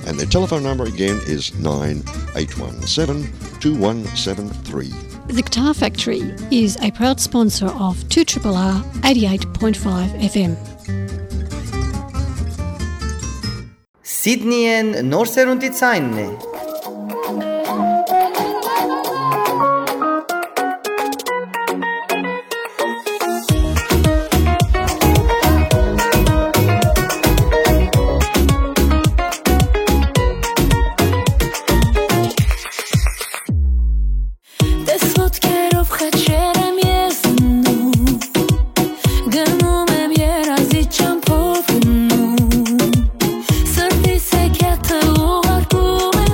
and their telephone number again is nine eight one seven, two one seven three. The Guitar Factory is a proud sponsor of two triple R eighty-eight point five F M. Սիդնիեն նոր սերունդի ցայնն է։ Տես ոտքերով խաչեր եմ ես դնում, գնում եմ երազի ճամփով գնում, սրտիս հեքիաթը ուղարկում եմ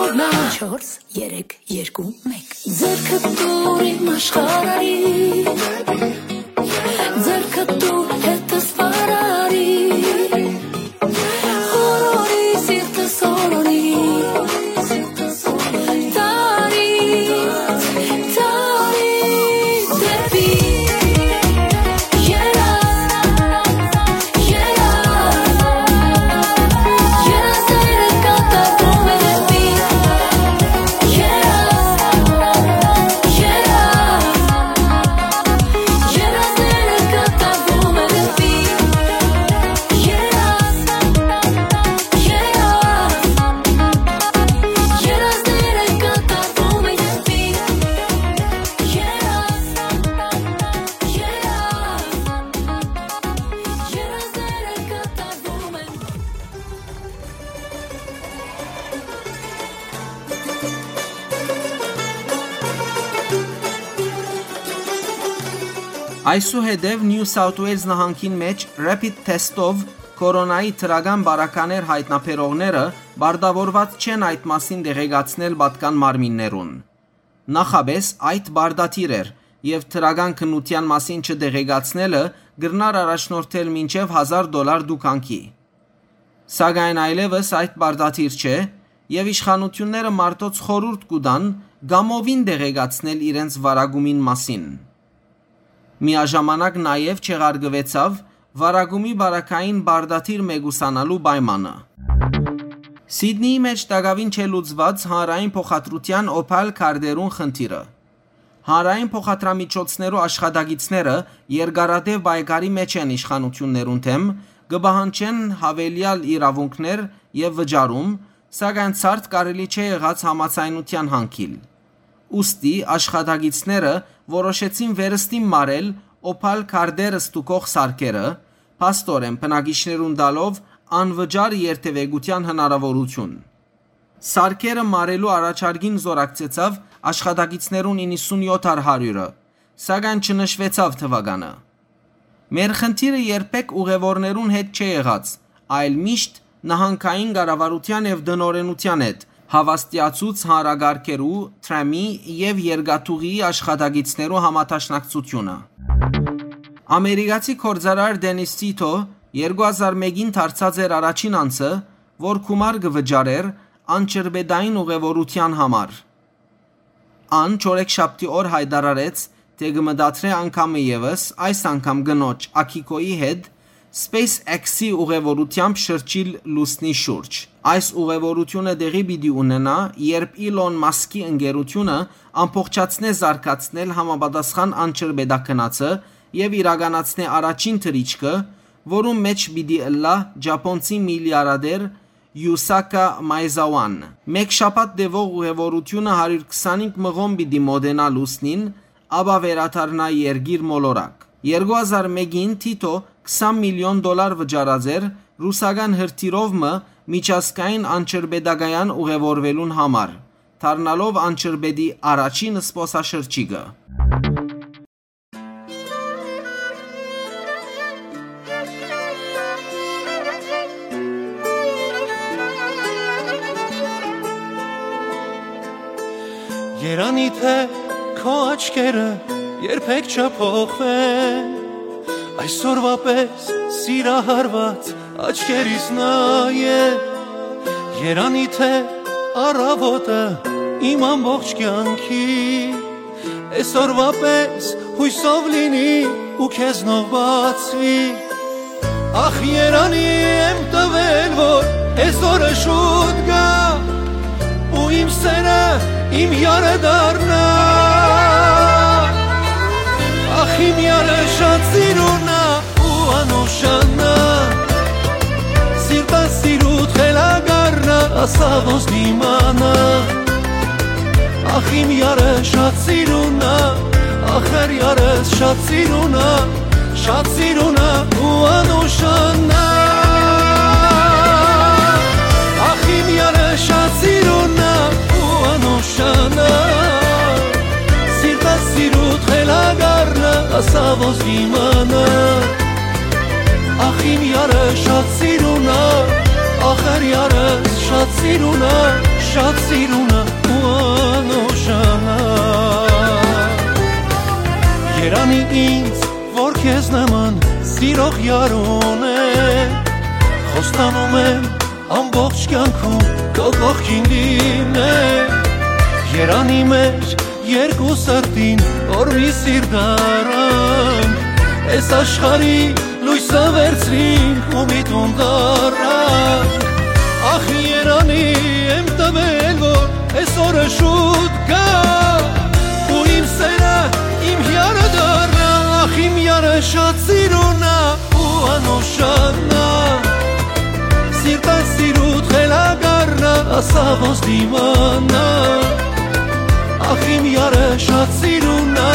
Չորս, երեք, երկու, մեկ։ Ձեռքը տուր իմ աշխարհի, ձեռքը տուր հետս վարարի, խորորի սիրտս օրորի, տարի, տարի դեպի երազ, երազ, երազները կատարվում են դեպի երազ, երազ, երազները կատարվում են դեպի երազ, երազ, երազները կատարվում են դեպի երազ, երազ, երազները կատարվում են։ Այսուհետեւ Նիու Սաութ Ուէյլզ նահանգին մէջ rapid test-ով կորոնայի դրական պարագաներ յայտնաբերողները պարտաւորուած չեն այդ մասին տեղեկացնել պատկան մարմիններուն։ Նախապէս այդ պարտադիր էր եւ դրական քննութեան մասին չտեղեկացնելը կրնար առաջնորդել մինչեւ հազար դոլար դուքանքի։ Սակայն այլեւս այդ պարտադիր չէ եւ իշխանութիւնները մարդոց խորհուրդ կու տան կամովին տեղեկացնել իրենց վարակումին մասին։ Միաժամանակ նաեւ չեղարկուեցաւ վարակումի պարագային պարտադիր մեկուսանալու պայմանը։ Սիդնիի մէջ տակաւին չէ լուծուած հանրային փոխադրութեան Օփալ քարտերուն խնդիրը։ Հանրային փոխադրամիջոցներու աշխատակիցները երկարատեւ պայքարի մէջ են իշխանութիւններուն դէմ, կը պահանջեն յաւելեալ իրաւունքներ եւ վճարում, սակայն ցարդ կարելի չէ եղած համաձայնութեան յանգիլ։ Ուստի աշխատակիցները որոշեցին վերստին մարել Օփալ քարտեր ստուգող սարքերը, փաստօրէն բնակիչներուն տալով անվճար երթեւեկութեան հնարաւորութիւն։ Սարքերը մարելու առաջարկին զօրակցեցաւ աշխատակիցներուն իննսունյոթ առ հարիւրը, սակայն չնշուեցաւ թուականը։ Մեր խնդիրը երբեք ուղեւորներուն հետ չէ եղած, այլ միշտ նահանգային կառավարութեան եւ տնօրէնութեան հետ, հաւաստիացուց հանրակառքերու, թրամի եւ երկաթուղիի աշխատակիցներու համադաշնակցութիւնը։ Ամերիկացի գործարար Դենիս Թիթո երկու հազար մէկին դարձած էր առաջին անձը, որ գումար կը վճարէր անջրպետային ուղեւորութեան համար։ Ան չորեքշաբթի օր յայտարարեց, թէ կը մտադրէ անգամը եւս, այս անգամ կնոջ Աքիքոյի հետ, SpaceX-ի ուղեւորութեամբ շրջիլ լուսնի շուրջ։ Այս ուղեւորութիւնը տեղի պիտի ունենայ, երբ Իլոն Մասկի ընկերութիւնը ամբողջացնէ զարգացնել համապատասխան անջրպետագնացը եւ իրականացնէ առաջին թռիչքը, որուն մէջ պիտի ըլլայ ճապոնցի միլիարդեր Յուսակա Մայզաուան։ Մէկ շաբաթ տեւող ուղեւորութիւնը հարիւր քսանինգ մղոն պիտի մօտենայ լուսնին, ապա վերադառնայ երկիր մոլորակ։ Երկու հազար մէկին Թիթո քսան միլիոն դոլար վճարած էր ռուսական հրթիռով մը միջազգային անջրպետակայան ուղեւորուելուն համար, դառնալով անջրպետի առաջին զբօսաշրջիկը։ Երանի թե քո աչքերը երբեք չփոխվեն, այսօրվա պես սիրահարված աչքերիս նայե։ Երանի թե առավոտը իմ ամբողջ կյանքի այսօրվա պես յուսով լինի ու քեզնով բացվի։ Ախ, երանի եմ տվել, որ այսօրը շուտ գայ ու իմ սերը իմ յարը դառնայ։ Ախ, իմ յարը շատ սիրուն ա ու անուշանա, սիրտը սիրուտ խելագարնա, ասա ոնց դիմանա։ Ախ, իմ յարը շատ սիրուն ա, ախր յարս շատ սիրուն ա, շատ սիրուն ա ու անուշանա։ Ախ, իմ յարը շատ սիրուն ա ու անուշանա, սիրտը սիրուտ խելագարնա, ասա ոնց դիմանա։ Ախ, իմ յարը շատ սիրուն ա, ախր յարս շատ սիրուն ա, շատ սիրունը ու անուշանա։ Երանի ինձ, որ քեզ նման սիրող յարուն է, խոստանում եմ ամբողջ կյանքում քո կողքին լինել։ Երանի մեր երկու սրտին որ մի սիրտ առանք, այս աշխարհի լոյսը վերցնինք ու մի տուն դառնանք։ Ախ, երանի եմ տվել, որ այս օրը շուտ գայ, ու իմ սերը իմ յարը դառնայ։ Ախ, իմ յարը շատ սիրունա ու անուշանա, սիրտը սիրուդ խելագարնայ, ասա ոնց դիմանայ։ Ախ, իմ յարը շատ սիրունա,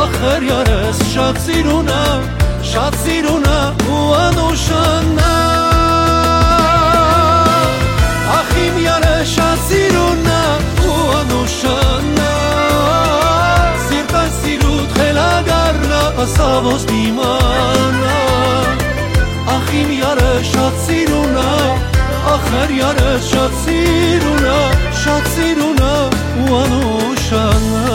ախր յարս շատ սիրունա, շատ սիրունա ու անուշանա։ Ախ, իմ յարը շատ սիրունա ու անուշանա, սիրտը սիրուդ խելագարնայ, ասա ոնց դիմանայ։ Ախ, իմ յարը շատ սիրունա, ախր յարը շատ սիրունա, շատ սիրունա ու անուշանա։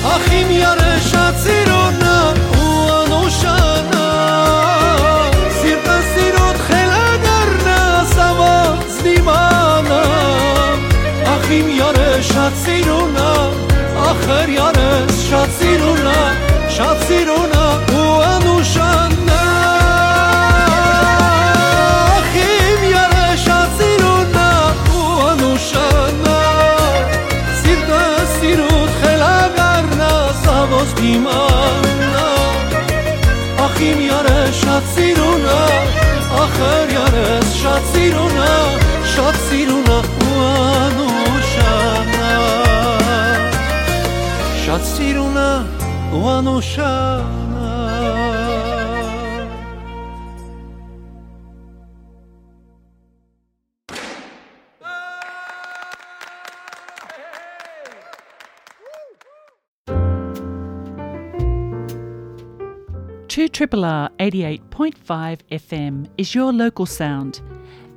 Ախ, իմ յարը շատ սիրունա ու անուշանա, սիրտը սիրուդ խելագարնայ, սա ոնց դիմանայ։ Ախ, իմ յարը շատ սիրունա, ախր յարս շատ սիրունա, շատ սիրունա ու անուշանա։ Ախ, իմ յարը շատ սիրունա ու անուշանա, սիրտը սիրուդ խելագարնայ, սա ոնց դիմանայ։ Ախ, իմ յարը շատ սիրունա, ախր յարս շատ սիրունա, շատ սիրունա ու անուշանա, շատ սիրունա ու անուշանա։ Two triple R eighty-eight point five F M is your local sound.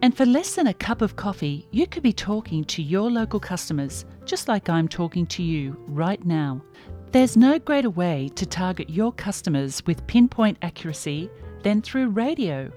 And for less than a cup of coffee, you could be talking to your local customers, just like I'm talking to you right now. There's no greater way to target your customers with pinpoint accuracy than through radio.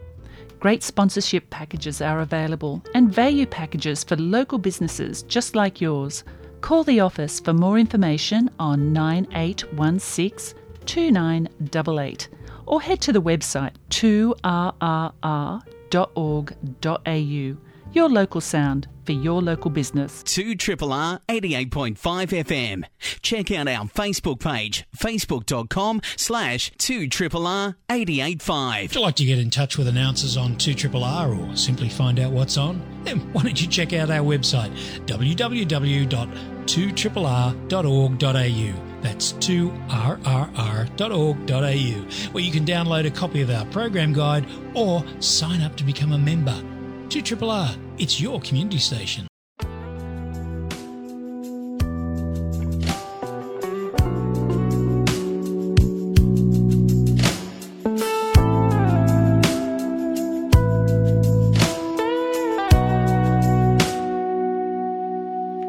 Great sponsorship packages are available and value packages for local businesses just like yours. Call the office for more information on nine eight one six two nine double eight or head to the website two R R R dot org dot A U. Your local sound for your local business. Two triple R eighty-eight point five F M. Check out our Facebook page, facebook dot com slash two triple R eight eight five. Would you like to get in touch with announcers on two triple R or simply find out what's on? Then why don't you check out our website, w w w dot two triple r dot org dot a u. That's two r r r dot org dot a u, where you can download a copy of our program guide or sign up to become a member. Two triple R, it's your community station.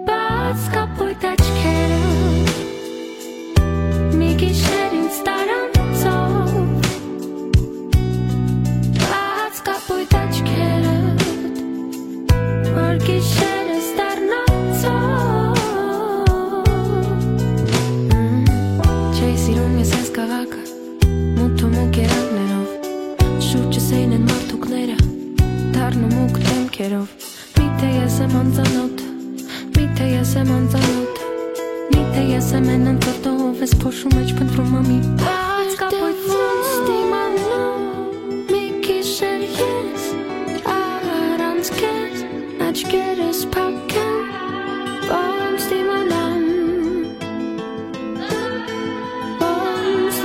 Բաց կապույտ աչքերը, մի գիշեր ինձ տարանցով, բաց կապույտ աչքերը, որ գիշերս դառնանցով։ Չէի սիրում ես այս քաղաքը, մութ ու մուկ երանգներով, շուրջս էին են մարդուկները, դառնու մուկ դեմքերով։ Միթե ես եմ անծանոթ, միթե ես եմ անծանոթ, միթե ես եմ են անծանոթ, ով ես փոշու մեջ փնտրում ամի բաց կապույտ ոնց դիմանամ, մի գիշեր ես առանց քեզ, աչքերս փակ են, ոնց դիմանամ, ոնց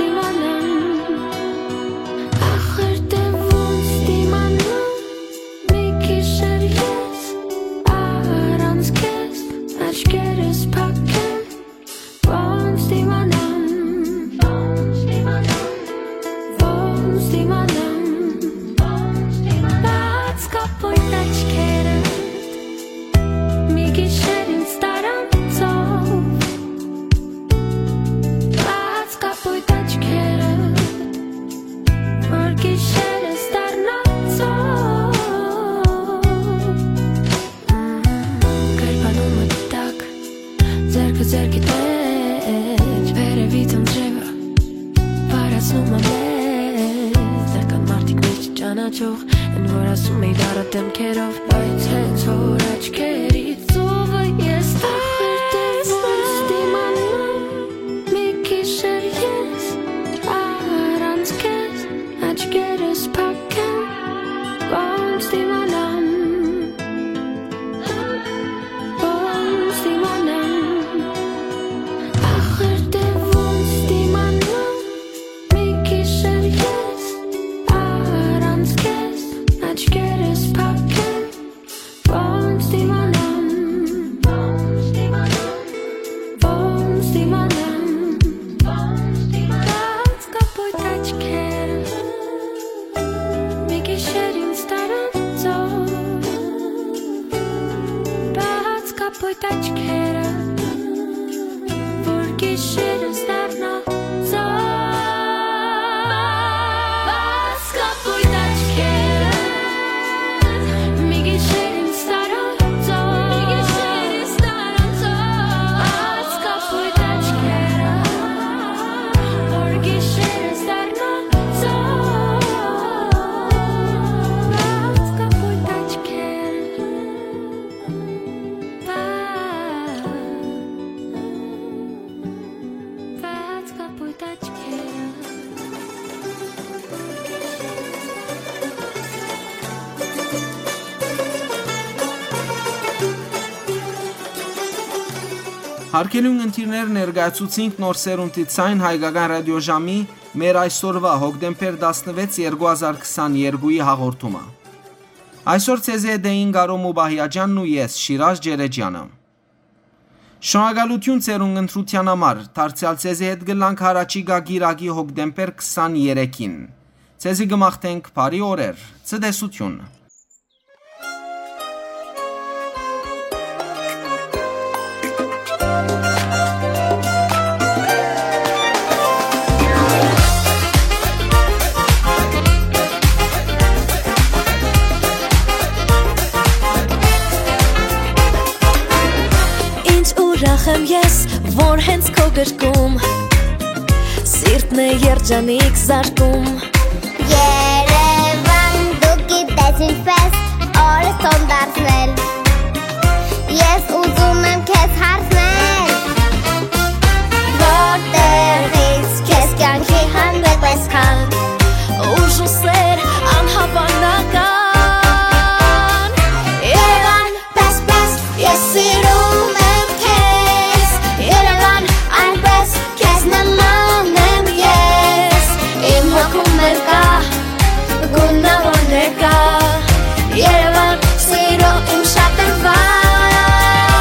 Ջող, են որ ասում էի դառը դեմքերով, բայց հենց որ աչքերիդ ծովը ես տեսնեմ, դիմանամ, մի գիշեր ես առանց քեզ, աչքերս փակ են, ոնց դիմանամ, ոնց դիմանամ, ախր դե ոնց դիմանամ, մի գիշեր ես առանց քեզ, աչքերս փակ են, ոնց դիմանամ, ոնց դիմանամ, ոնց դիմանամ, ոնց դիմանամ, բաց կապույտ աչքերը, մի գիշեր ինձ տարանցող, բաց կապույտ աչքերը, որ գիշերս դառնա ծով։ Բաց կապույտ աչքերը, մի գիշեր ինձ տարանցող, մի գիշեր ինձ տարանցող, բաց կապույտ աչքերը, որ գիշերս դառնա ծով։ Բաց կապույտ աչքերը, բաց, բաց կապույտ աչքերը։ Հարգելի ունգընտիրներ, ներկայացուցինք Նոր Սերունդի Ցայն հայկական ռադիոժամի մեր այսօրուա հոկտեմբեր տասնվեց երկու հազար քսաներկուի հաղորդումը։ Այսօր ձեզի հետ էին Կարո Մուբահիաջանն ու ես, Շիրաժ Ջերեջյանը։ Շնորհակալութիւն ձեր ունգընտրութեան համար, դարձեալ ձեզի հետ կ'ըլլանք յառաջիկայ կիրակի հոկտեմբեր քսաներեքին։ Ձեզի կը մաղթենք բարի օրեր, ցտեսութիւն։ Ինչ ուրախ եմ ես, որ հենց քո գրկում սիրտն է երջանիկ զարկում։ Երևան, դու գիտես ինչպես օրս տոն դարձնել։ Ես ուզում եմ քեզ հարցնել, որտեղից քեզ կյանքի հանդեպ այսքան ուժ ու սեր անհավանական։ Երևան, պես, պես, ես սիրում եմ քեզ, Երևան, այնպես քեզ նման եմ ես, իմ հոգում էլ կա գունավոր ներկա, Երևան, սիրո իմ շատրվան։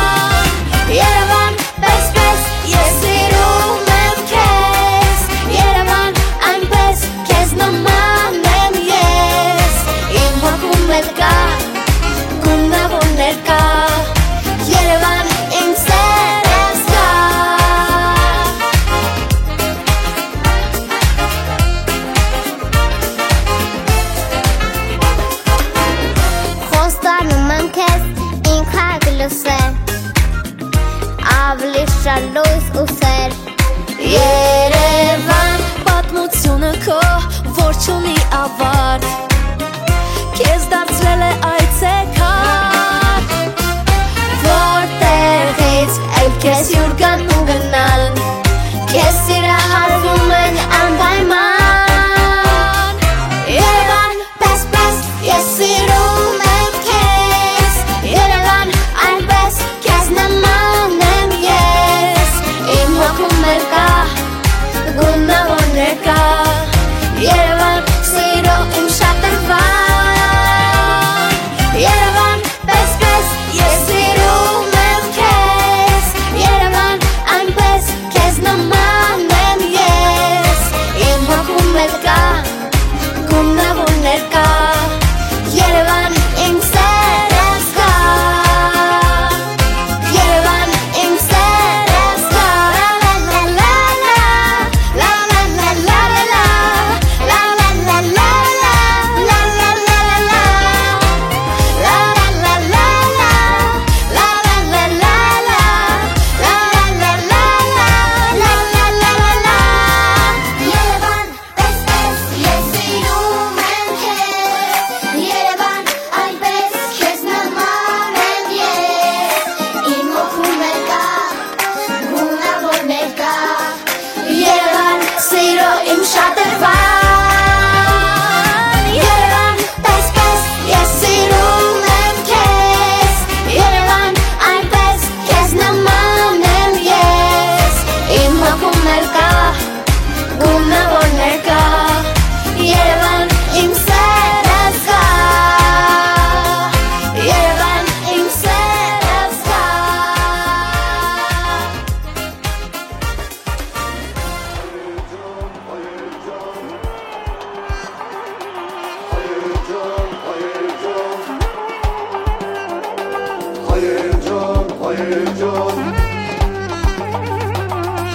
Հայեր ջան,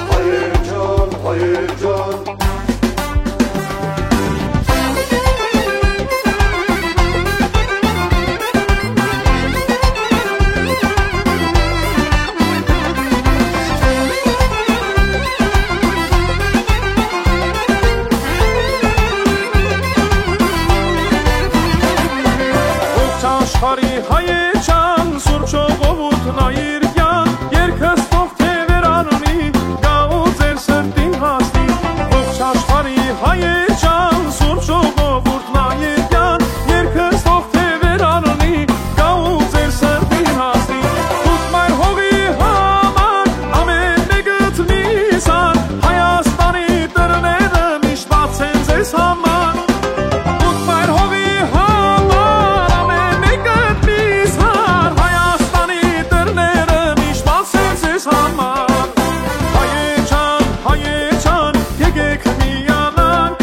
հայեր ջան, հայեր ջան։ Ողջ աշխարհի հայեր ջան, Սուրբ ժողովուրդն այր կեան, երկս թող թեւեր առնի, գա ու ձեր սրտին հասնի։ Ողջ աշխարհի հայեր ջան, Սուրբ ժողովուրդն այր կեան, երկս թող թեւեր առնի, գա ու ձեր սրտին հասնի։ Դուք մայր հողի համար ամեն մեկդ մի սան, Հայաստանի դռները միշտ բաց են ձեզ համար։ Դուք մայր հողի համար ամեն մեկդ մի սան, Հայաստանի դռները միշտ բաց են ձեզ համար։ Հայեր ջան, հայեր ջան, եկեք միանանք,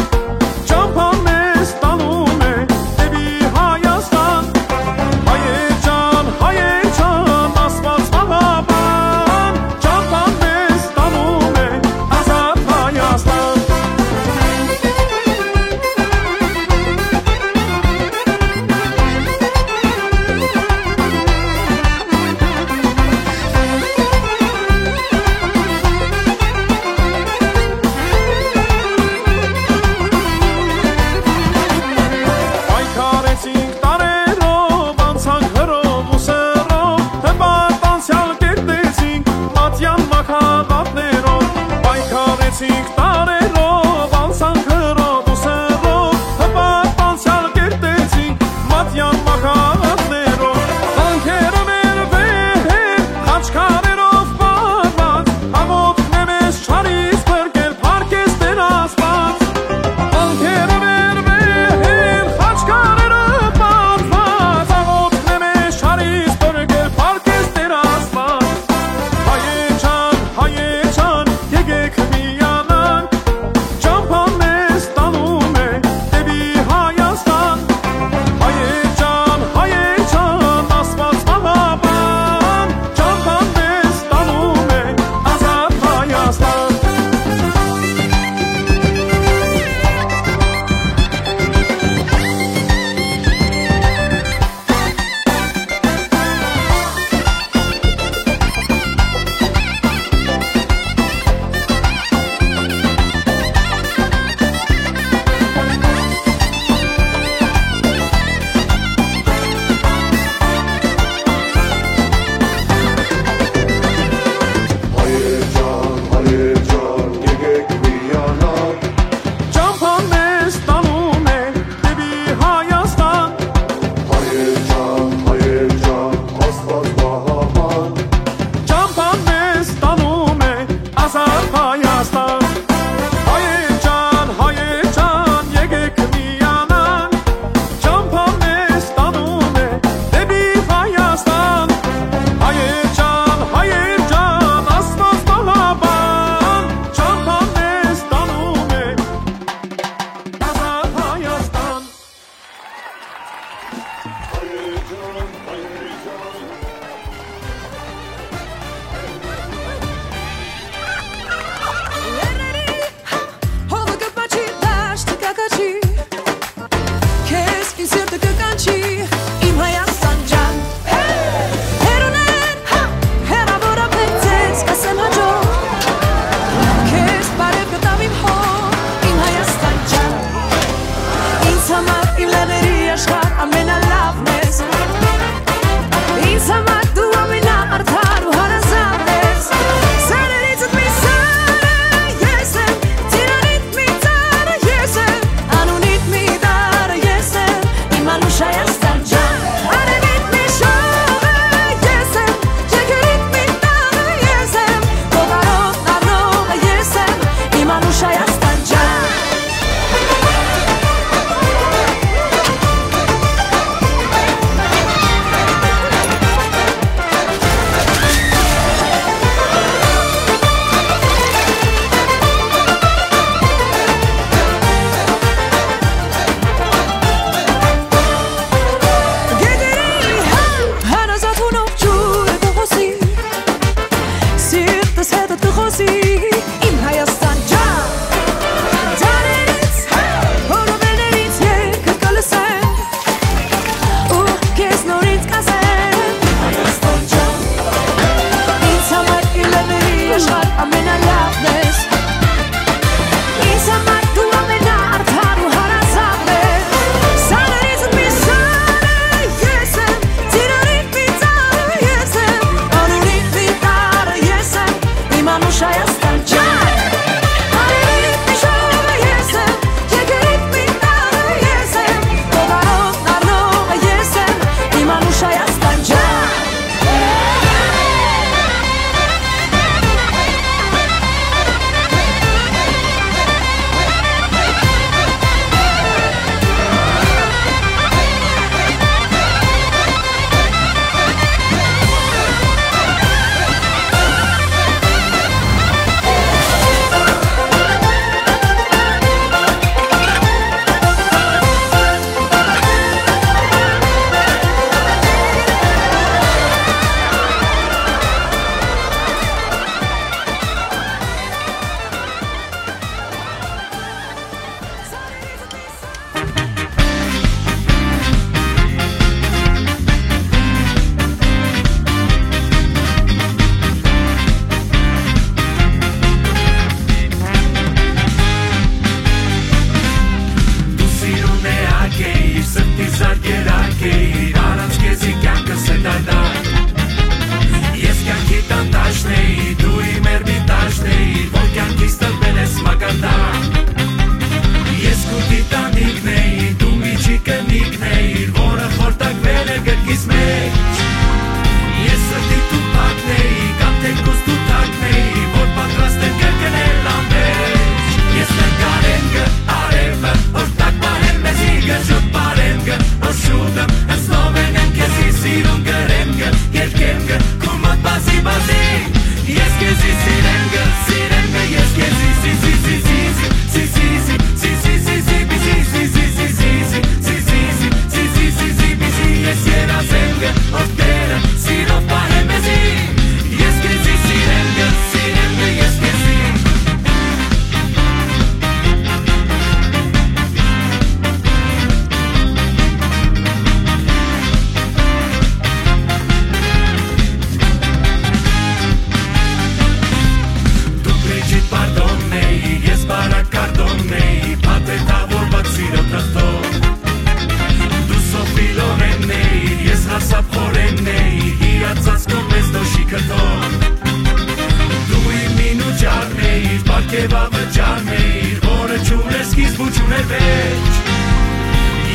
Որ չունէր սկիզբ ու չունէր վերջ։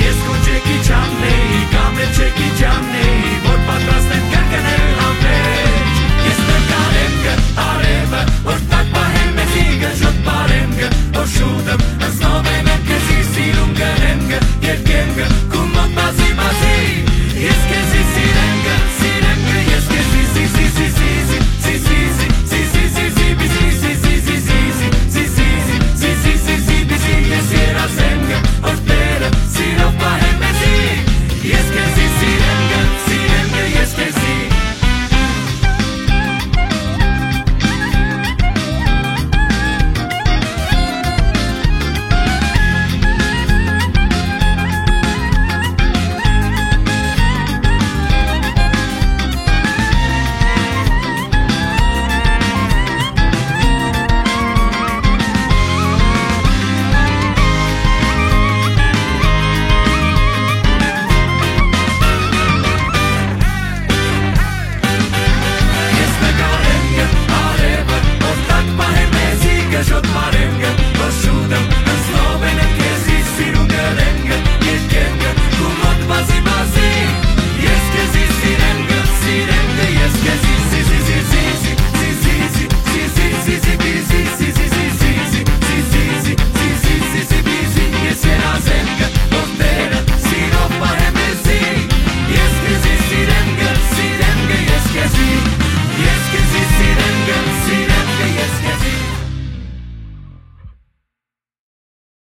Ես քո չեքի չաննեի, կամ էլ չեքի չաննեի, որ պատրաստ եմ կրկնել